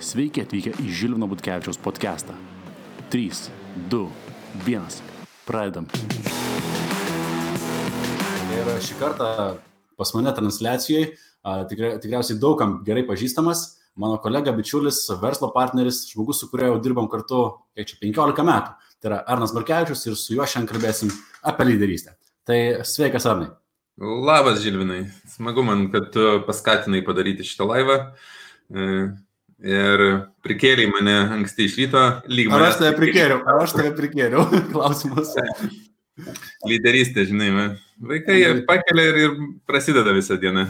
Sveiki atvykę į Žilvino Butkevičiaus podcastą. 3, 2, 1. Pradedam. Ir šį kartą pas mane transliacijoje tikriausiai daugam gerai pažįstamas mano kolega, bičiulis, verslo partneris, žmogus, su kuriuo jau dirbam kartu 15 metų. Tai yra Arnas Markevičius ir su juo šiandien kalbėsim apie lyderystę. Tai sveikas, Arnai. Labas, Žilvinai. Smagu man, kad tu paskatinai padaryti šitą laivą. Ir prikėlei mane anksti iš ryto. Ar aš tave prikėliau? Klausimas. Lyderystė, žinai, vaikai pakelia ir prasideda visą dieną.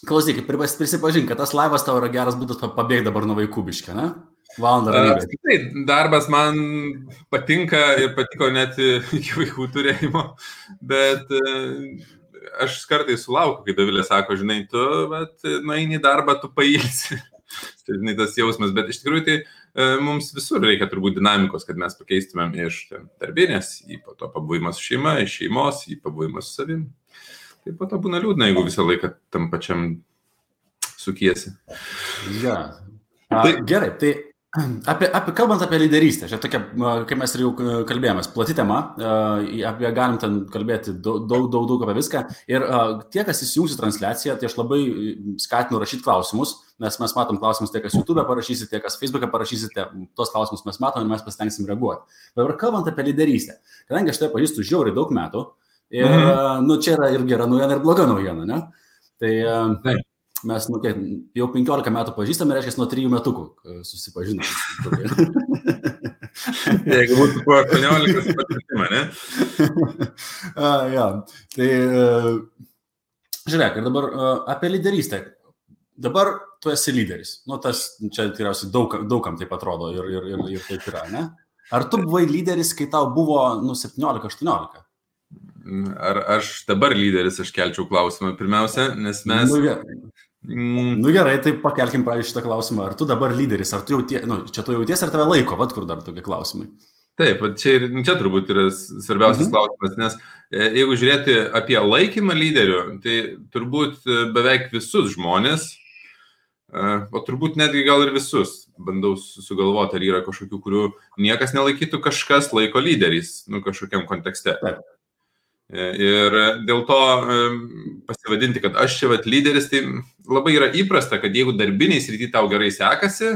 Klausyk, prisipažink, kad tas laivas tavo yra geras būdas pabėgti dabar nuo vaikų biškį, ne? Valandą ramybė. Tai darbas man patinka ir patiko net iki vaikų turėjimo, bet aš kartais sulaukiu, kai Dovilė sako, žinai, tu nueini į darbą, tu pailsi. Tai, žinai, tas jausmas, bet iš tikrųjų tai mums visur reikia turbūt dinamikos, kad mes pakeistumėm iš darbinės į po to pabuvimą su šeima, iš šeimos į pabuvimą su savim. Tai po to būna liūdna, jeigu visą laiką tam pačiam sukiesi. Ja. Gerai, tai kalbant apie lyderystę, čia tokia, kaip mes ir jau kalbėjomės, plati tema, apie galim ten kalbėti daug apie viską. Ir tie, kas įsijungsi transliaciją, tai aš labai skatinu rašyti klausimus, nes mes matom klausimus tie, kas YouTube parašysite, tie, kas Facebook'e parašysite, tos klausimus mes matom ir mes pasitengsim reaguoti. Dabar kalbant apie lyderystę, kadangi aš tai pažįstu žiauriai daug metų, ir čia yra ir gera naujiena, ir bloga naujiena, ne? Tai mes jau 15 metų pažįstame, reiškia, nuo 3 metukų susipažinome. Jeigu būtų po 18 patirtimą, ne? Ja, tai žiūrėk, ir dabar apie lyderystę. Dabar tu esi lyderis. Nu, tas čia tikriausiai daugam taip atrodo ir taip yra, ne? Ar tu buvai lyderis, kai tau buvo 17-18? Ar aš dabar lyderis, aš kelčiau klausimą pirmiausia, nes mes... Nu gerai, tai pakelkim praėjus šitą klausimą. Ar tu dabar lyderis, ar tu čia tu jauties, ar tave laiko, kur dar tokie klausimai? Taip, čia turbūt yra svarbiausias klausimas, nes jeigu žiūrėti apie laikymą lyderių, tai turbūt beveik visus žmonės, o turbūt netgi gal ir visus, bandau sugalvoti, ar yra kažkokių, kurių niekas nelaikytų, kažkas laiko lyderiais, kažkokiam kontekste. Taip. Ir dėl to pasivadinti, kad aš čia lyderis, tai labai yra įprasta, kad jeigu darbiniai srity tau gerai sekasi,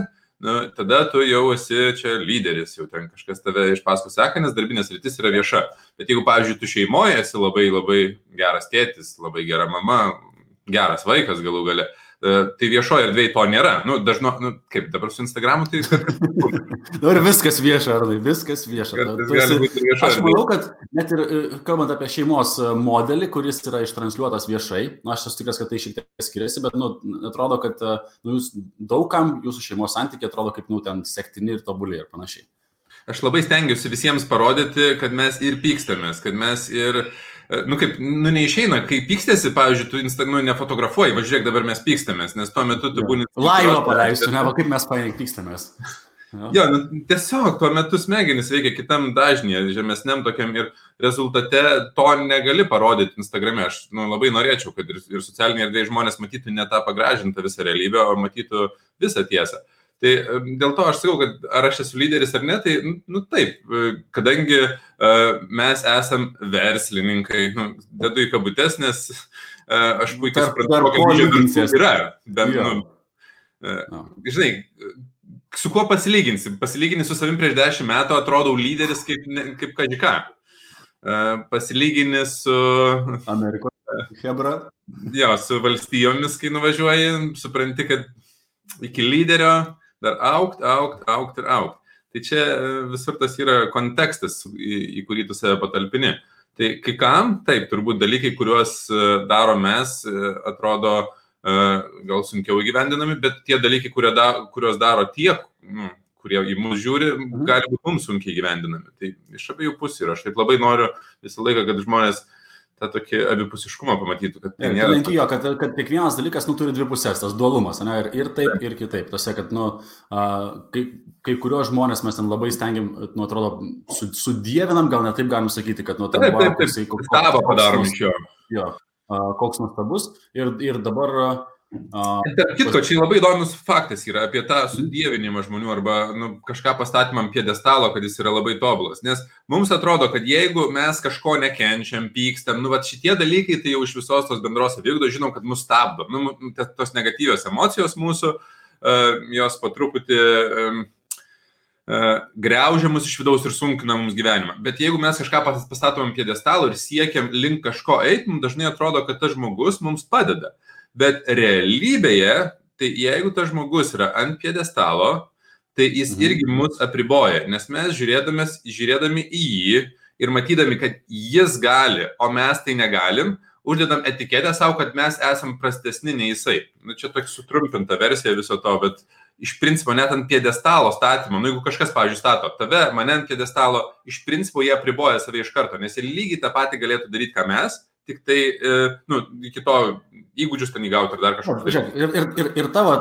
tada tu jau esi čia lyderis, jau ten kažkas tave iš paskui seka, nes darbinės sritis yra vieša. Bet jeigu, pavyzdžiui, tu šeimoje esi labai geras tėtis, labai gera mama, geras vaikas galų gale, tai viešoje erdvėje to nėra. Kaip dabar su Instagramu, tai... Dabar viskas vieša, Arnai, viskas vieša. Aš manau, kad net ir kalbant apie šeimos modelį, kuris yra ištransliuotas viešai, aš esu tikras, kad tai šiek tiek skiriasi, bet atrodo, kad jūs daugam jūsų šeimos santykiai atrodo kaip ten sektini ir tobuli ir panašiai. Aš labai stengiuosi visiems parodyti, kad mes ir pykstamės, kad mes ir... neišeina, kai pykstėsi, pavyzdžiui, tu nefotografuoji, žiūrėk, dabar mes pykstamės, nes tuo metu tu būni... Laivą paleistų, kaip mes paėk pykstamės. Jo, tiesiog tuo metu smegenis veikia kitam dažnyje, žemesniam tokiam ir rezultate to negali parodyti Instagrame. Aš labai norėčiau, kad ir socialiniai erdvėje žmonės matytų ne tą pagražintą visą realybę, o matytų visą tiesą. Tai dėl to aš sakau, kad ar aš esu lyderis ar ne, tai taip, kadangi mes esam verslininkai, dedu į kabutes, nes aš puikiai suprantu, kokia didžia yra. Žinai, su kuo pasilyginsi? Pasilyginti su savim prieš 10 metų atrodau lyderis kaip kažką. Pasilyginti su... Amerikos hebra. Jo, su valstijomis, kai nuvažiuoji, supranti, kad iki lyderio dar augt ir augt. Tai čia visur tas yra kontekstas, į kurį tu save patalpini. Tai kai kam, taip, turbūt dalykai, kuriuos daro mes, atrodo gal sunkiau įgyvendinami, bet tie dalykai, kuriuos daro tie, kurie į mus žiūri, gali būti mums sunkiai įgyvendinami. Tai iš abiejų pusių ir aš taip labai noriu visą laiką, kad žmonės tą tokį abipusiškumą pamatytų, kad tai nėra... Jo, kad kiekvienas dalykas turi dvi pusės, tas dualumas, ne? Ir taip, ir kitaip. Tose, kad kai kuriuos žmonės mes ten labai stengiam, atrodo, sudievinam, gal ne taip galim sakyti, kad Taip, stabą padarom iš jo. Jo, koks nuostabus. Ir dabar Tarp kitko, čia labai įdomus faktas yra apie tą sudievinimą žmonių arba kažką pastatymam piedestalo, kad jis yra labai tobulas. Nes mums atrodo, kad jeigu mes kažko nekenčiam, pykstam, šitie dalykai tai jau iš visos tos bendros savigdos žinom, kad mus stabdo. Tos negatyvios emocijos mūsų, jos po truputį griaužia mus iš vidaus ir sunkina mums gyvenimą. Bet jeigu mes kažką pastatom piedestalo ir siekiam link kažko eiti, mums dažnai atrodo, kad tas žmogus mums padeda. Bet realybėje, tai jeigu tas žmogus yra ant piedestalo, tai jis irgi mus apriboja, nes mes žiūrėdami į jį ir matydami, kad jis gali, o mes tai negalim, uždedam etiketę savo, kad mes esam prastesni nei jisai. Čia tokia sutrumpinta versija viso to, bet iš principo net ant piedestalo statymo, jeigu kažkas, pavyzdžiui, stato tave, mane ant piedestalo, iš principo jie apriboja save iš karto, nes jie lygiai tą patį galėtų daryti, ką mes, tik tai, iki to įgūdžius ten įgauti ir dar kažką. Ir tavo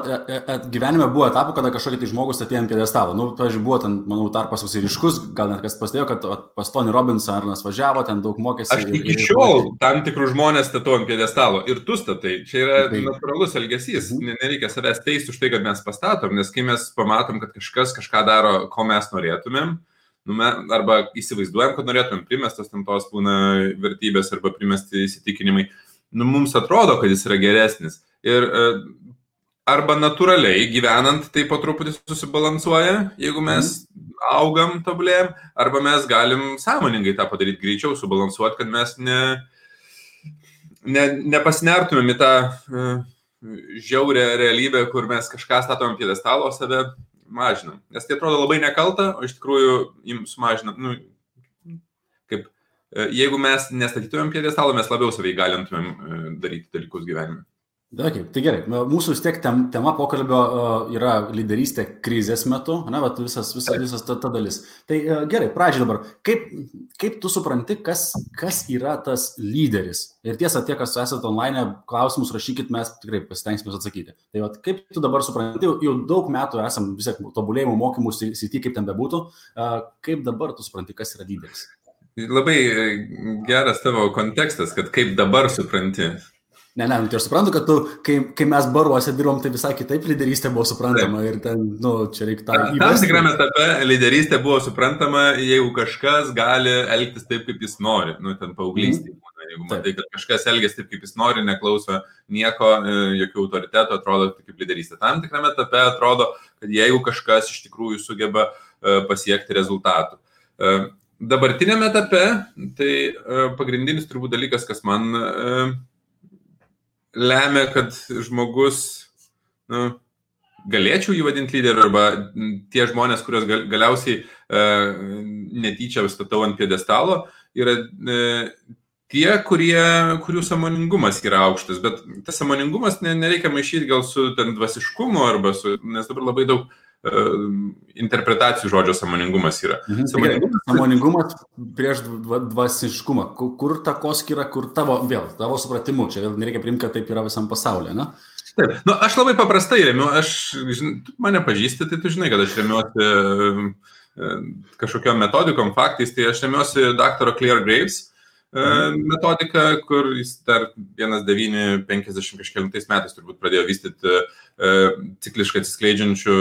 gyvenime buvo etapų, kada kažkokį tai žmogus atėjo ant piedestalo. Pavyzdžiui, buvo ten, manau, tarpas visai ryškus, gal net kas pastėjo, kad pas Tony Robbinsą Arnas važiavo, ten daug mokėsi. Aš iki šiol tam tikrų žmonės statau ant piedestalo ir tu statai. Čia yra natūralus elgesys. Nereikia savęs teisti už tai, kad mes pastatom, nes kai mes pamatom, kad kažkas kažką daro, ko mes norėtumėm, arba įsivaizduojam, kad norėtumėm primestas tam tos būna vertybės arba primesti įsitikinimai, mums atrodo, kad jis yra geresnis. Ir arba natūraliai gyvenant tai po truputį susibalansuoja, jeigu mes augam, tobulėjam, arba mes galim sąmoningai tą padaryti greičiau, subalansuoti, kad mes nepasinertumėm į tą žiaurę realybę, kur mes kažką statom piedestalo, save mažinam. Nes tai atrodo labai nekalta, o iš tikrųjų jums sumažinam. Jeigu mes nestatytumėm piedestalo, mes labiau savai galintumėm daryti dalykus gyvenime. Okay, tai gerai, mūsų vis tiek tema pokalbio yra lyderystė krizės metu, visas ta dalis. Tai gerai, pradžiai dabar, kaip tu supranti, kas yra tas lyderis? Ir tiesa, tie, kas esate online, klausimus rašykit, mes tikrai pasitengsime atsakyti. Tai kaip tu dabar supranti, jau daug metų esam vis tiek tobulėjimo mokymų srity, kaip ten bebūtų, kaip dabar tu supranti, kas yra lyderis? Labai geras tavo kontekstas, kad kaip dabar supranti. Ne, tai aš suprantu, kad tu, kai mes baruose dirbom, tai visai kitaip lyderystė buvo suprantama ir ten, čia reikia tą įvesti. Tam tikrame etape lyderystė buvo suprantama, jeigu kažkas gali elgtis taip, kaip jis nori, ten paauglystėje. Jeigu matai, kad kažkas elgės taip, kaip jis nori, neklauso nieko, jokių autoritetų, atrodo kaip lyderystė. Tam tikrame etape atrodo, kad jeigu kažkas iš tikrųjų sugeba pasiekti rezultatų. Dabartinėme etape, tai pagrindinis turbūt dalykas, kas man lemia, kad žmogus, galėčiau jį vadinti lyderiu, arba tie žmonės, kurios galiausiai netyčia statau ant piedestalo, yra tie, kurių sąmoningumas yra aukštas, bet tas sąmoningumas nereikia maišyti gal su ten dvasiškumu, nes dabar labai daug interpretacijų žodžio sąmoningumas yra. Sąmoningumas prieš dvasiškumą. Kur takoskyra, kur tavo supratimu, čia nereikia priimti, kad taip yra visam pasaulyje, ne? Taip, aš labai paprastai remiu, tu mane pažįsti, tai tu žinai, kad aš remiuosi kažkokiom metodikom, faktais, tai aš remiuosi daktaro Claire Graves metodika, kur jis dar 1950 kažkelintais metais turbūt pradėjo vystyti cikliškai atsiskleidžiančių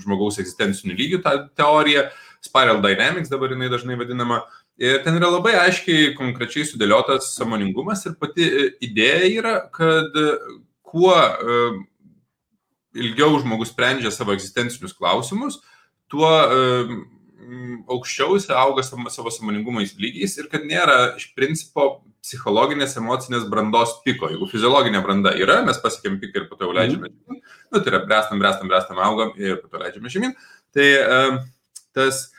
žmogaus egzistencinių lygių tą teoriją, Spiral Dynamics dabar jinai dažnai vadinama. Ir ten yra labai aiškiai, konkrečiai sudėliotas sąmoningumas ir pati idėja yra, kad kuo ilgiau žmogus sprendžia savo egzistencinius klausimus, tuo aukščiau auga savo sąmoningumais lygiais ir kad nėra iš principo psichologinės, emocinės brandos piko. Jeigu fiziologinė branda yra, mes pasiekėm piką ir po to leidžiame žemyn. Tai yra brestam, augam ir po to leidžiame žemyn. Tai tas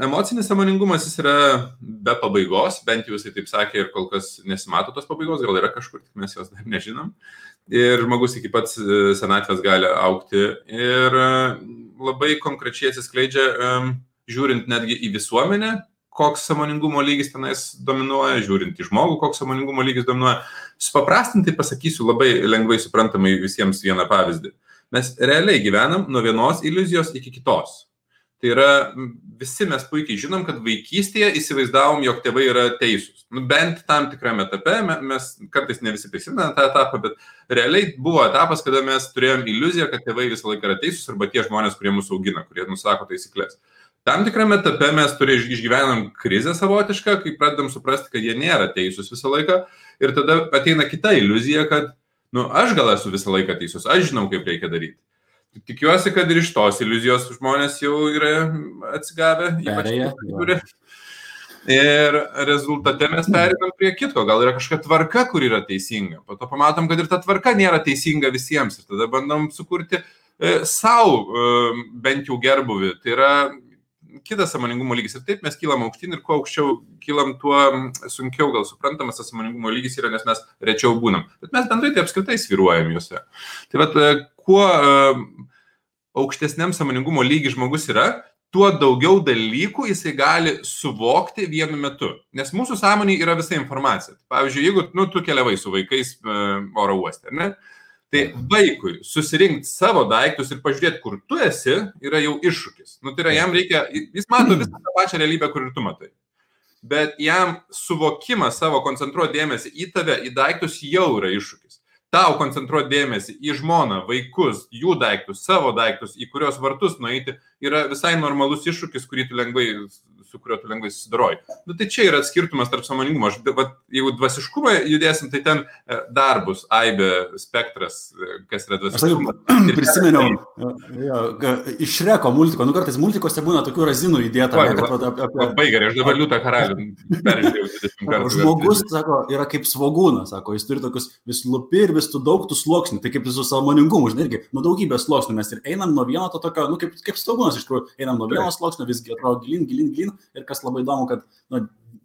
emocinis sąmoningumas jis yra be pabaigos, bent jau jisai taip sakė ir kol kas nesimato tos pabaigos, gal yra kažkur, tik mes jos dar nežinom. Ir žmogus iki pats senatvės gali augti ir labai konkrečiai atsiskleidžia, žiūrint netgi į visuomenę, koks sąmoningumo lygis tenais dominuoja, žiūrint į žmogų, koks sąmoningumo lygis dominuoja. Supaprastintai pasakysiu labai lengvai suprantamai visiems vieną pavyzdį. Mes realiai gyvenam nuo vienos iliuzijos iki kitos. Tai yra, visi mes puikiai žinom, kad vaikystėje įsivaizdavom, jog tėvai yra teisūs. Bent tam tikrame etape, mes kartais ne visi prisimename tą etapą, bet realiai buvo etapas, kada mes turėjom iliuziją, kad tėvai visą laiką yra teisūs arba tie žmonės, kurie mūsų augina, kurie nusako taisyklės. Tam tikrame etape mes išgyvenam krizę savotišką, kai pradedam suprasti, kad jie nėra teisūs visą laiką ir tada ateina kita iliuzija, kad aš gal esu visą laiką teisus, aš žinau, kaip reikia daryti. Tikiuosi, kad ir iš tos iliuzijos žmonės jau yra atsigavę. Ir rezultate mes pereinam prie kitko. Gal yra kažkokia tvarka, kur yra teisinga. Po to pamatom, kad ir ta tvarka nėra teisinga visiems. Ir tada bandom sukurti savo bent jau gerbuvį. Tai yra kitas sąmoningumo lygis. Ir taip mes kylam aukštyn ir kuo aukščiau kylam, tuo sunkiau gal suprantamas tas sąmoningumo lygis yra, nes mes rečiau būnam. Bet mes bendrai tai apskritai svyruojam juose. Tai vat, kuo aukštesniam sąmoningumo lygi žmogus yra, tuo daugiau dalykų jisai gali suvokti vienu metu. Nes mūsų sąmonėje yra visa informacija. Pavyzdžiui, jeigu tu keliavai su vaikais oro uoste, ne? Tai vaikui susirinkti savo daiktus ir pažiūrėti, kur tu esi, yra jau iššūkis. Tai yra, jam reikia, jis mato visą tą pačią realybę, kur ir tu matai. Bet jam suvokimas savo koncentruoti dėmesį į tave, į daiktus jau yra iššūkis. Tau koncentruoti dėmesį į žmoną, vaikus, jų daiktus, savo daiktus, į kurios vartus nueiti, yra visai normalus iššūkis, su kuriuo tu lengvai susidaroji. Tai čia yra skirtumas tarp sąmoningumo. Jeigu dvasiškumą judėsim, tai ten dar bus aibė spektras, kas yra dvasiškumas. Aš prisiminiau iš Šreko multiko. Kartais multikose būna tokių razinų įdėta. Labai gerai, aš dabar Liūtą karalių peržiūrėjau 20 kartų. Žmogus, sako, yra kaip svogūnas, sako, jis turi tokius vis lupi ir vis tu daug tų sluoksnių. Tai kaip su sąmoningumu, žinai, irgi, daugybės sluoksnių mes ir einam nuo vieno to tokio, kaip svogūnas iš tikrųjų, einam nuo vieno sluoksnio, visgi atrodo gilin. Ir kas labai įdomu, kad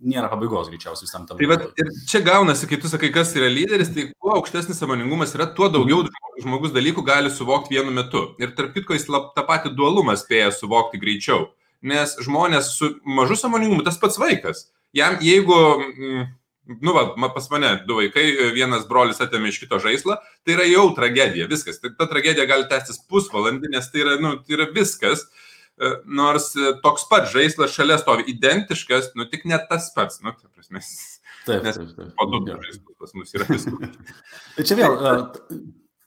nėra pabaigos greičiausiai visam tam. Tai ir čia gaunasi, kai tu sakai, kas yra lyderis, tai kuo aukštesnis sąmoningumas yra, tuo daugiau žmogus dalykų gali suvokti vienu metu. Ir tarp kitko jis tą patį dualumą spėja suvokti greičiau. Nes žmonės su mažu sąmoningumu, tas pats vaikas. Jam, jeigu, pas mane 2 vaikai, vienas brolis atėmė iš kito žaislą, tai yra jau tragedija, viskas. Ta tragedija gali tęstis pusvalandį, nes tai yra viskas. Nors toks pat žaislas šalia stovi identiškas, tik ne tas pats, ta prasme. Nes po 2 žaislus pas mus yra viskas. Tai čia vėl.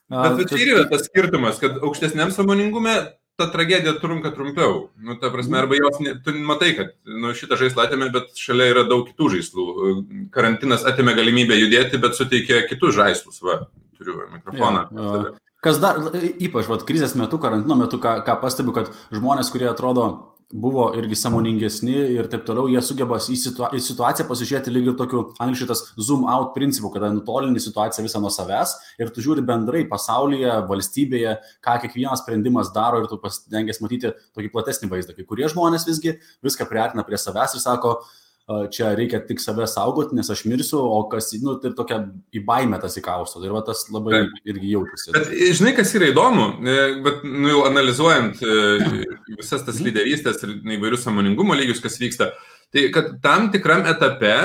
Bet čia yra tas skirtumas, kad aukštesniam sąmoningume ta tragedija trunka trumpiau. Ta prasme, arba jos, tu matai, kad šitą žaislą atėmė, bet šalia yra daug kitų žaislų. Karantinas atėmė galimybę judėti, bet suteikė kitus žaislus. Turiu mikrofoną. Kas dar, ypač krizės metu, karantino metu, ką pastebiu, kad žmonės, kurie atrodo buvo irgi sąmoningesni ir taip toliau, jie sugeba į situaciją pasižiūrėti lyg ir tokiu angliškai tas zoom out principu, kada nutolini situaciją visą nuo savęs ir tu žiūri bendrai pasaulyje, valstybėje, ką kiekvienas sprendimas daro ir tu pasitengęs matyti tokį platesnį vaizdą. Kai kurie žmonės visgi viską priartina prie savęs ir sako, čia reikia tik save saugoti, nes aš mirsiu, o kas, tai tokia į baimę tas įkausto. Ir tas labai irgi jaučiasi. Bet žinai, kas yra įdomu, bet jau analizuojant visas tas lyderystės ir įvairius sąmoningumo lygius, kas vyksta, tai kad tam tikram etape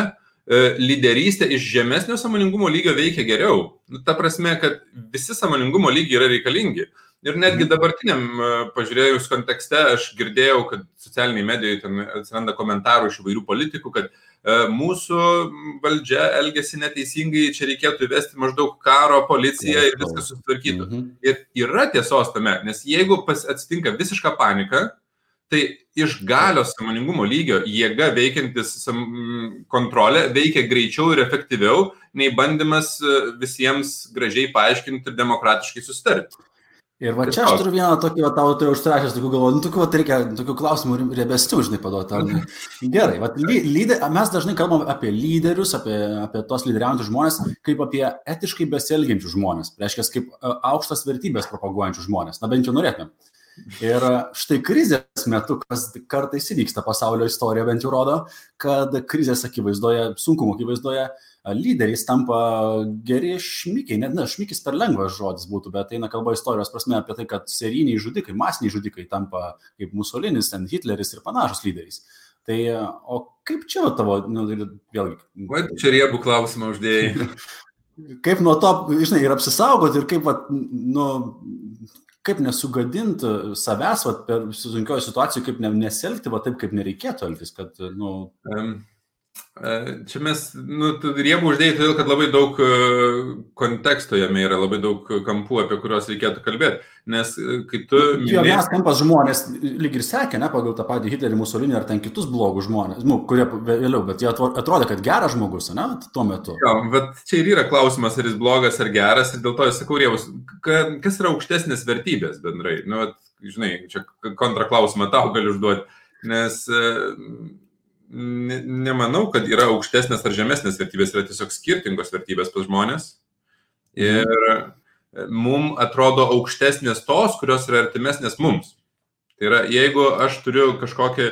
lyderystė iš žemesnio sąmoningumo lygio veikia geriau. Ta prasme, kad visi sąmoningumo lygiai yra reikalingi. Ir netgi dabartiniam pažiūrėjus kontekste aš girdėjau, kad socialiniai medijoje ten atsiranda komentarų iš įvairių politikų, kad mūsų valdžia elgesi neteisingai, čia reikėtų įvesti maždaug karo, policiją ir viskas susitvarkytų. Ir yra tiesos tame, nes jeigu atsitinka visiška panika, tai iš galios sąmoningumo lygio jėga veikiantis kontrolė veikia greičiau ir efektyviau, nei bandymas visiems gražiai paaiškinti ir demokratiškai susitarti. Ir čia aš turiu vieną tokį, tau tai užsirašęs, tokių galvoju, reikia tokių klausimų riebesnių, žinai, paduoti. Gerai, mes dažnai kalbam apie lyderius, apie tos lyderiaujančius žmonės, kaip apie etiškai besielgiančius žmonės, reiškia, kaip aukštas vertybės propaguojančius žmonės, bent jau norėtumėm. Ir štai krizės metu, kas kartais įvyksta pasaulio istorija, bent jau rodo, kad krizės akivaizdoje, sunkumo akivaizdoje, lyderiais tampa geri šmikiai, šmikis per lengvas žodis būtų, bet eina kalba istorijos prasme apie tai, kad serijiniai žudikai, masiniai žudikai tampa kaip Musolinis, Hitleris ir panašus lyderiais. Tai, o kaip čia tavo, vėlgi... Čia riebų klausimą uždėjai. Kaip nuo to, žinai, ir apsisaugoti, ir kaip, kaip nesugadinti savęs per sunkioje situacijoje, kaip nesielgti taip, kaip nereikėtų elgtis, kad, Čia mes, riebų uždėjai, todėl, kad labai daug konteksto jame yra, labai daug kampų, apie kuriuos reikėtų kalbėti. Nes kai tu... Vienas kampas žmonės lyg ir sekė, pagal tą patį Hitlerį, Musolinį ar ten kitus blogus žmonės, kurie vėliau, bet jie atrodė, kad geras žmogus, tuo metu. Jo, bet čia ir yra klausimas, ar jis blogas ar geras, ir dėl to aš sakau, riebus, kas yra aukštesnės vertybės bendrai? Žinai, čia kontraklausimą tau galiu užduoti, nes... Nemanau, kad yra aukštesnės ar žemesnės vertybės, yra tiesiog skirtingos vertybės pas žmonės. Ir mums atrodo aukštesnės tos, kurios yra artimesnės mums. Tai yra, jeigu aš turiu kažkokią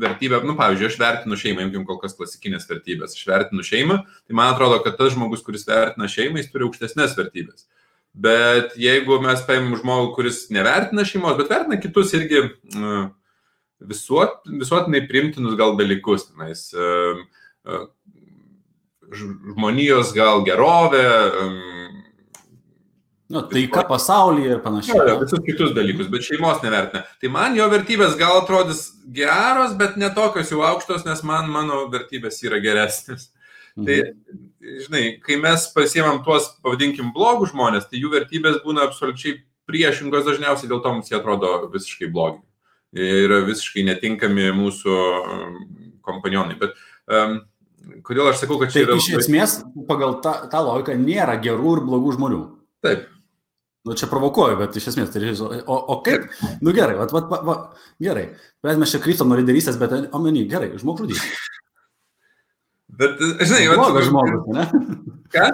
vertybę, pavyzdžiui, aš vertinu šeimą, imkim kol kas klasikinės vertybės, aš vertinu šeimą, tai man atrodo, kad tas žmogus, kuris vertina šeimą, jis turi aukštesnės vertybės. Bet jeigu mes paimam žmogų, kuris nevertina šeimos, bet vertina kitus irgi... visuotinai priimtinus gal dalykus, žmonijos gal gerovė, taika pasaulyje ir panašiai. Visus kitus dalykus, bet šeimos nevertina. Tai man jo vertybės gal atrodys geros, bet ne tokios jau aukštos, nes mano vertybės yra geresnės. Tai, žinai, kai mes pasiemam tuos, pavadinkim, blogus žmonės, tai jų vertybės būna absoliučiai priešingos dažniausiai, dėl to mums jie atrodo visiškai blogi. Yra visiškai netinkami mūsų kompanionai. Bet kodėl aš sakau, kad čia yra... Tai iš esmės, pagal tą logiką, nėra gerų ir blogų žmonių. Taip. Čia provokuoju, bet iš esmės, tai o kaip? Gerai, gerai. Mes čia kryptam nuo lyderystės, bet omeny, gerai, žmogžudys. Bet, žinai... Blogas žmogus, ne? Ką?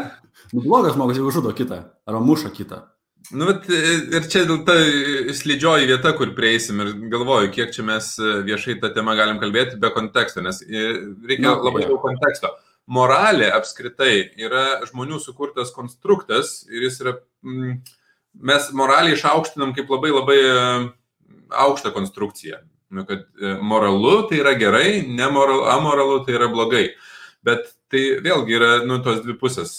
Blogas žmogus, jeigu žudo kitą, arba muša kitą. Ir čia ta slidžioji vieta, kur prieisim ir galvoju, kiek čia mes viešai tą temą galim kalbėti be konteksto, nes reikia labai daug konteksto. Moralė apskritai yra žmonių sukurtas konstruktas ir jis yra, mes moralį išaukštinam kaip labai labai aukštą konstrukciją. Kad moralu tai yra gerai, amoralu tai yra blogai. Bet tai vėlgi yra tos dvi pusės,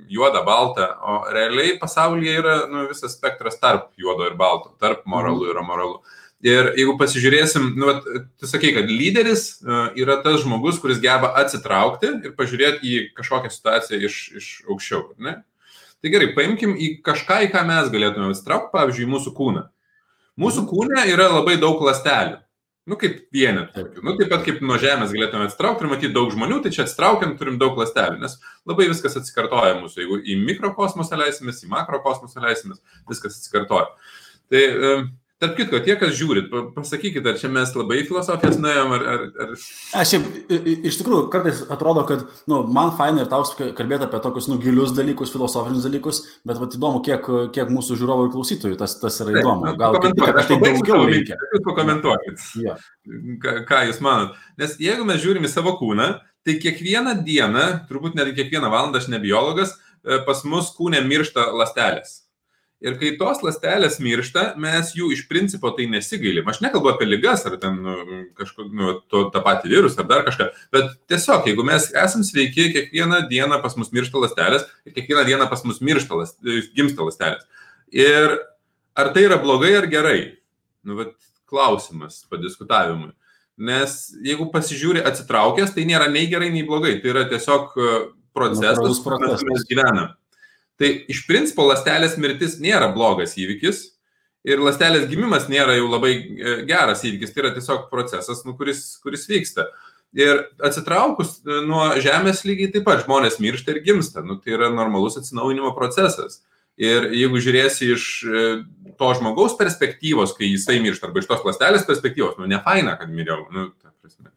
juoda, balta, o realiai pasaulyje yra visas spektras tarp juodo ir balto, tarp moralu ir amoralu. Ir jeigu pasižiūrėsim, tu sakai, kad lyderis yra tas žmogus, kuris geba atsitraukti ir pažiūrėti į kažkokią situaciją iš aukščiau. Ne? Tai gerai, paimkim į kažką, į ką mes galėtume atsitraukti, pavyzdžiui, mūsų kūną. Mūsų kūne yra labai daug ląstelių. Kaip vienetų. Taip pat kaip nuo žemės galėtume atsitraukti ir matyti daug žmonių, tai čia atsitraukiant turim daug ląstelių, nes labai viskas atsikartoja mūsų. Jeigu į mikrokosmosą leisimės, į makrokosmosą leisimės, viskas atsikartoja. Tai, tarp kitko, tie, kas žiūrit, pasakykit, ar čia mes labai filosofijas nuėjom, ar... Iš tikrųjų, kartais atrodo, kad man faina ir tau kalbėti apie tokius gilius dalykus, filosofinius dalykus, bet įdomu, kiek mūsų žiūrovų ir klausytojų tas yra įdomu. Gal tai daugiau reikia. Jūs pakomentuokit, ką jūs manot. Nes jeigu mes žiūrim į savo kūną, tai kiekvieną dieną, turbūt net kiekvieną valandą, aš ne biologas, pas mus kūne miršta ląstelės. Ir kai tos ląstelės miršta, mes jų iš principo tai nesigailim. Aš nekalbu apie ligas ar ten tą patį virusą ar dar kažką, bet tiesiog, jeigu mes esam sveiki, kiekvieną dieną pas mus miršta ląstelės ir kiekvieną dieną pas mus gimsta ląstelės. Ir ar tai yra blogai ar gerai? Klausimas padiskutavimui. Nes jeigu pasižiūri atsitraukęs, tai nėra nei gerai, nei blogai. Tai yra tiesiog procesas, kur mes gyvenam. Tai iš principo ląstelės mirtis nėra blogas įvykis ir ląstelės gimimas nėra jau labai geras įvykis, tai yra tiesiog procesas, kuris vyksta. Ir atsitraukus nuo žemės lygiai taip pat žmonės miršta ir gimsta, tai yra normalus atsinaujinimo procesas. Ir jeigu žiūrėsi iš to žmogaus perspektyvos, kai jisai miršta, arba iš tos ląstelės perspektyvos, nefaina, kad miriau, ta prasme.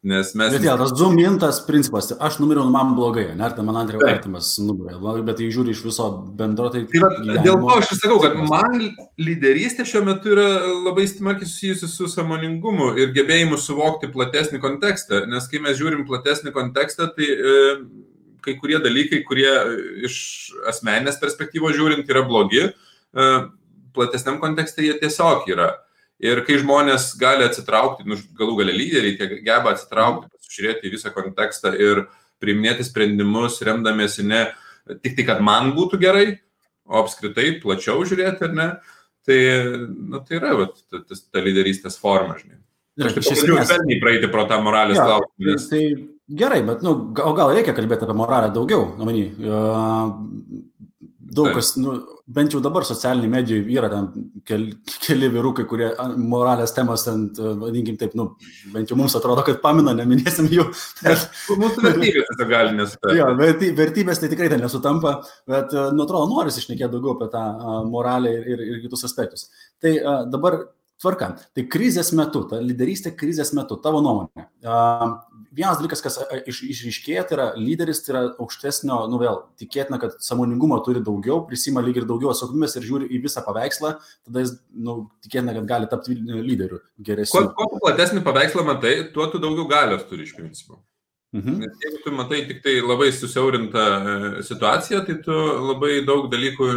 Nes mes... Bet tas zumintas principas, aš numiriau, man blogai, ne, tai man antrėjo artimas numirė, bet jei žiūri iš viso bendro, tai... Dėl to aš sakau, kad man lyderystė šiuo metu yra labai smarkiai susijusi su sąmoningumu ir gebėjimu suvokti platesnį kontekstą, nes kai mes žiūrim platesnį kontekstą, tai kai kurie dalykai, kurie iš asmeninės perspektyvos žiūrint yra blogi, platesniam kontekste jie tiesiog yra. Ir kai žmonės gali atsitraukti, galų gale lyderiai geba atsitraukti, pasižiūrėti į visą kontekstą ir priiminėti sprendimus, remdamiesi ne tik tai, kad man būtų gerai, o apskritai plačiau žiūrėti, ar ne, Tai yra ta lyderystės forma, žinai. Aš taip švelniai praeiti pro tą moralės klausimą. Tai gerai, bet gal reikia kalbėti apie moralę daugiau. Daug kas, bent jau dabar socialiniai medijai yra ten keli vyrukai, kurie moralės temas, vadinkim taip, bent jau mums atrodo, kad pamina, neminėsim jų. Mūsų vertybės tai gali nesutampa. Jo, vertybės tai tikrai ten nesutampa, bet, atrodo, norisi šnekėti daugiau apie tą moralę ir kitus aspektus. Tai dabar tvarka. Tai krizės metu, ta lyderystė krizės metu, tavo nuomonė. Vienas dalykas, kas išryškėja, tai yra lyderis, tai yra aukštesnio, vėl, tikėtina, kad sąmoningumo turi daugiau, prisima lyg ir daugiau atsakomybės ir žiūri į visą paveikslą, tada jis, tikėtina, kad gali tapti lyderiu geresniu. Kuo platesnį paveikslą matai, tuo tu daugiau galios turi iš principo. Nes jeigu tu matai tik tai labai susiaurintą situaciją, tai tu labai daug dalykų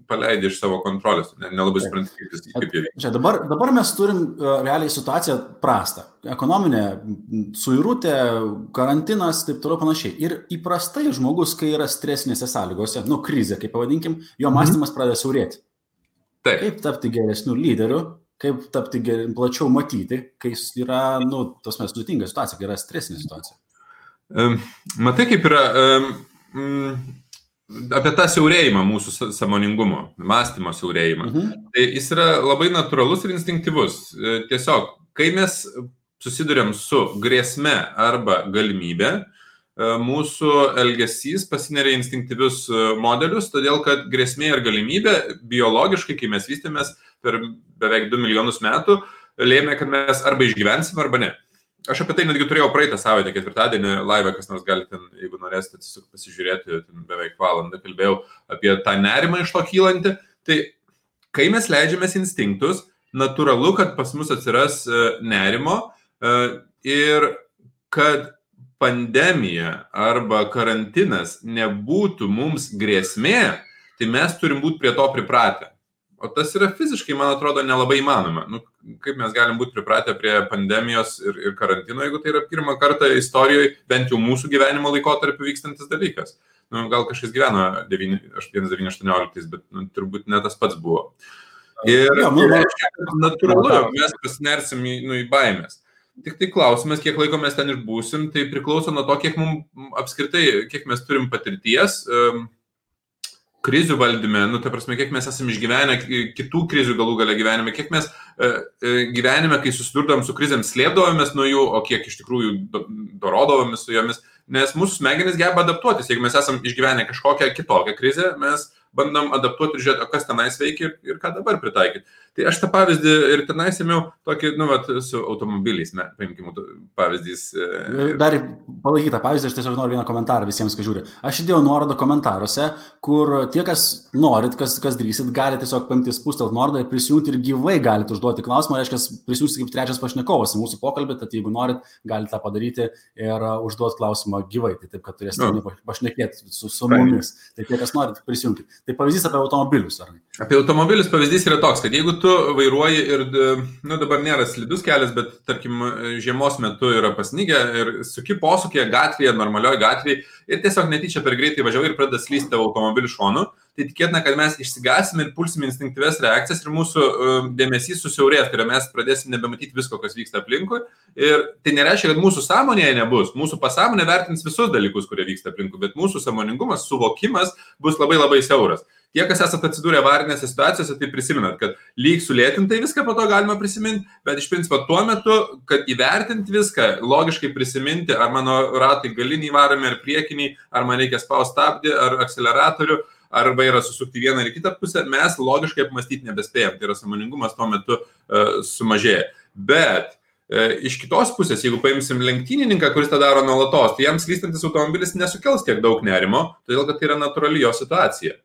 paleidi iš savo kontrolės, nelabai supranti, kaip jie veikia. Dabar mes turim realiai situaciją prastą. Ekonominė suirutė, karantinas, taip toliau panašiai. Ir įprastai žmogus, kai yra stresinėse sąlygose, krizė, kaip pavadinkim, jo mąstymas pradeda siaurėti. Kaip tapti geresniu lyderiu, kaip tapti plačiau matyti, kai yra, sudėtinga situacija, kai yra stresinė situacija. Matai, kaip yra apie tą siaurėjimą mūsų sąmoningumo, mąstymo siaurėjimą. Tai jis yra labai natūralus ir instinktyvus. Tiesiog, kai mes susiduriam su grėsme arba galimybė, mūsų elgesys pasineria instinktyvius modelius, todėl kad grėsmė ir galimybė biologiškai, kai mes vystėmės per beveik 2 milijonus metų, lėmė, kad mes arba išgyvensim arba ne. Aš apie tai netgi turėjau praeitą savaitę, ketvirtadienį live, kas nors gali ten, jeigu norėsite pasižiūrėti, ten beveik valandą kalbėjau apie tą nerimą iš to kylantį. Tai kai mes leidžiamės instinktus, natūralu, kad pas mus atsiras nerimo ir kad pandemija arba karantinas nebūtų mums grėsmė, tai mes turim būti prie to pripratę. O tas yra fiziškai, man atrodo, nelabai įmanoma. Kaip mes galim būti pripratę prie pandemijos ir karantino, jeigu tai yra pirmą kartą istorijoje, bent jau mūsų gyvenimo laikotarpiu vykstantis dalykas. Gal kažkas gyveno 1918, bet turbūt ne tas pats buvo. Ir natūralu, mes pasinersim į baimės. Tik tai klausimas, kiek laiko mes ten išbūsim, tai priklauso nuo to, kiek mums apskritai, kiek mes turim patirties, krizių valdyme, ta prasme, kiek mes esame išgyvenę kitų krizių galų gale gyvenime, kiek mes gyvenime, kai susidurdom su krizėm, slėpdavomės nuo jų, o kiek iš tikrųjų dorodavomės su jomis, nes mūsų smegenys geba adaptuotis. Jeigu mes esame išgyvenę kažkokią kitokią krizę, mes bandom adaptuoti ir žiūrėti, kas tenais veikia ir ką dabar pritaikyti. Tai aš tą pavyzdį ir tenais ėmiau tokį, su automobiliais, paimkim pavyzdys. Dar palaikyti tą pavyzdį, aš tiesiog noriu vieną komentarą visiems, kas žiūri. Aš įdėjau nuorodą komentaruose, kur tie, kas norit, kas drįsit, gali tiesiog paimti spustelt nuorodą ir prisijungti ir gyvai galite užduoti klausimą, reiškia, prisijungti kaip trečias pašnekovas į mūsų pokalbį, tad jeigu norit, galite tą padaryti ir užduoti klausimą gyvai, tai taip, kad turėsite pašnekėti su mumis. Tai tie, kas norit, prisijungti. Tai pavyzdys apie automobilius, ar ne? Apie automobilius pavyzdys yra toks, kad jeigu tu vairuoji ir, dabar nėra slidus kelias, bet, tarkim, žiemos metu yra pasnygę ir suki posūkėje gatvėje, normalioje gatvėje ir tiesiog netyčia per greitai važiavai ir pradeda slysti tavo automobilių šonu, tai tikėtina, kad mes išsigasime ir pulsime instinktyvias reakcijas ir mūsų dėmesys susiaurės, tai mes pradėsim nebematyti visko, kas vyksta aplinkui. Ir tai nereiškia, kad mūsų sąmonėje nebus. Mūsų pasąmonė vertins visus dalykus, kurie vyksta aplinkui, bet mūsų sąmoningumas, suvokimas bus labai labai siauras. Tie, kas esate atsidūrę avarinėse situacijose, tai prisimenat, kad lyg sulėtintai viską po to galima prisiminti, bet iš principo tuo metu, kad įvertinti viską, logiškai prisiminti, ar mano ratai galiniai varomi, ar priekiniai, ar man reikia spausti stabdį, ar akceleratorių, ar vairą susukti vieną ir kitą pusę, mes logiškai apmastyti nebespėjom. Tai yra sąmoningumas tuo metu sumažėja. Bet iš kitos pusės, jeigu paimsim lenktynininką, kuris tą daro nuolatos, tai jam slystantis automobilis nesukels tiek daug nerimo, todėl kad tai yra natūrali jo situacija.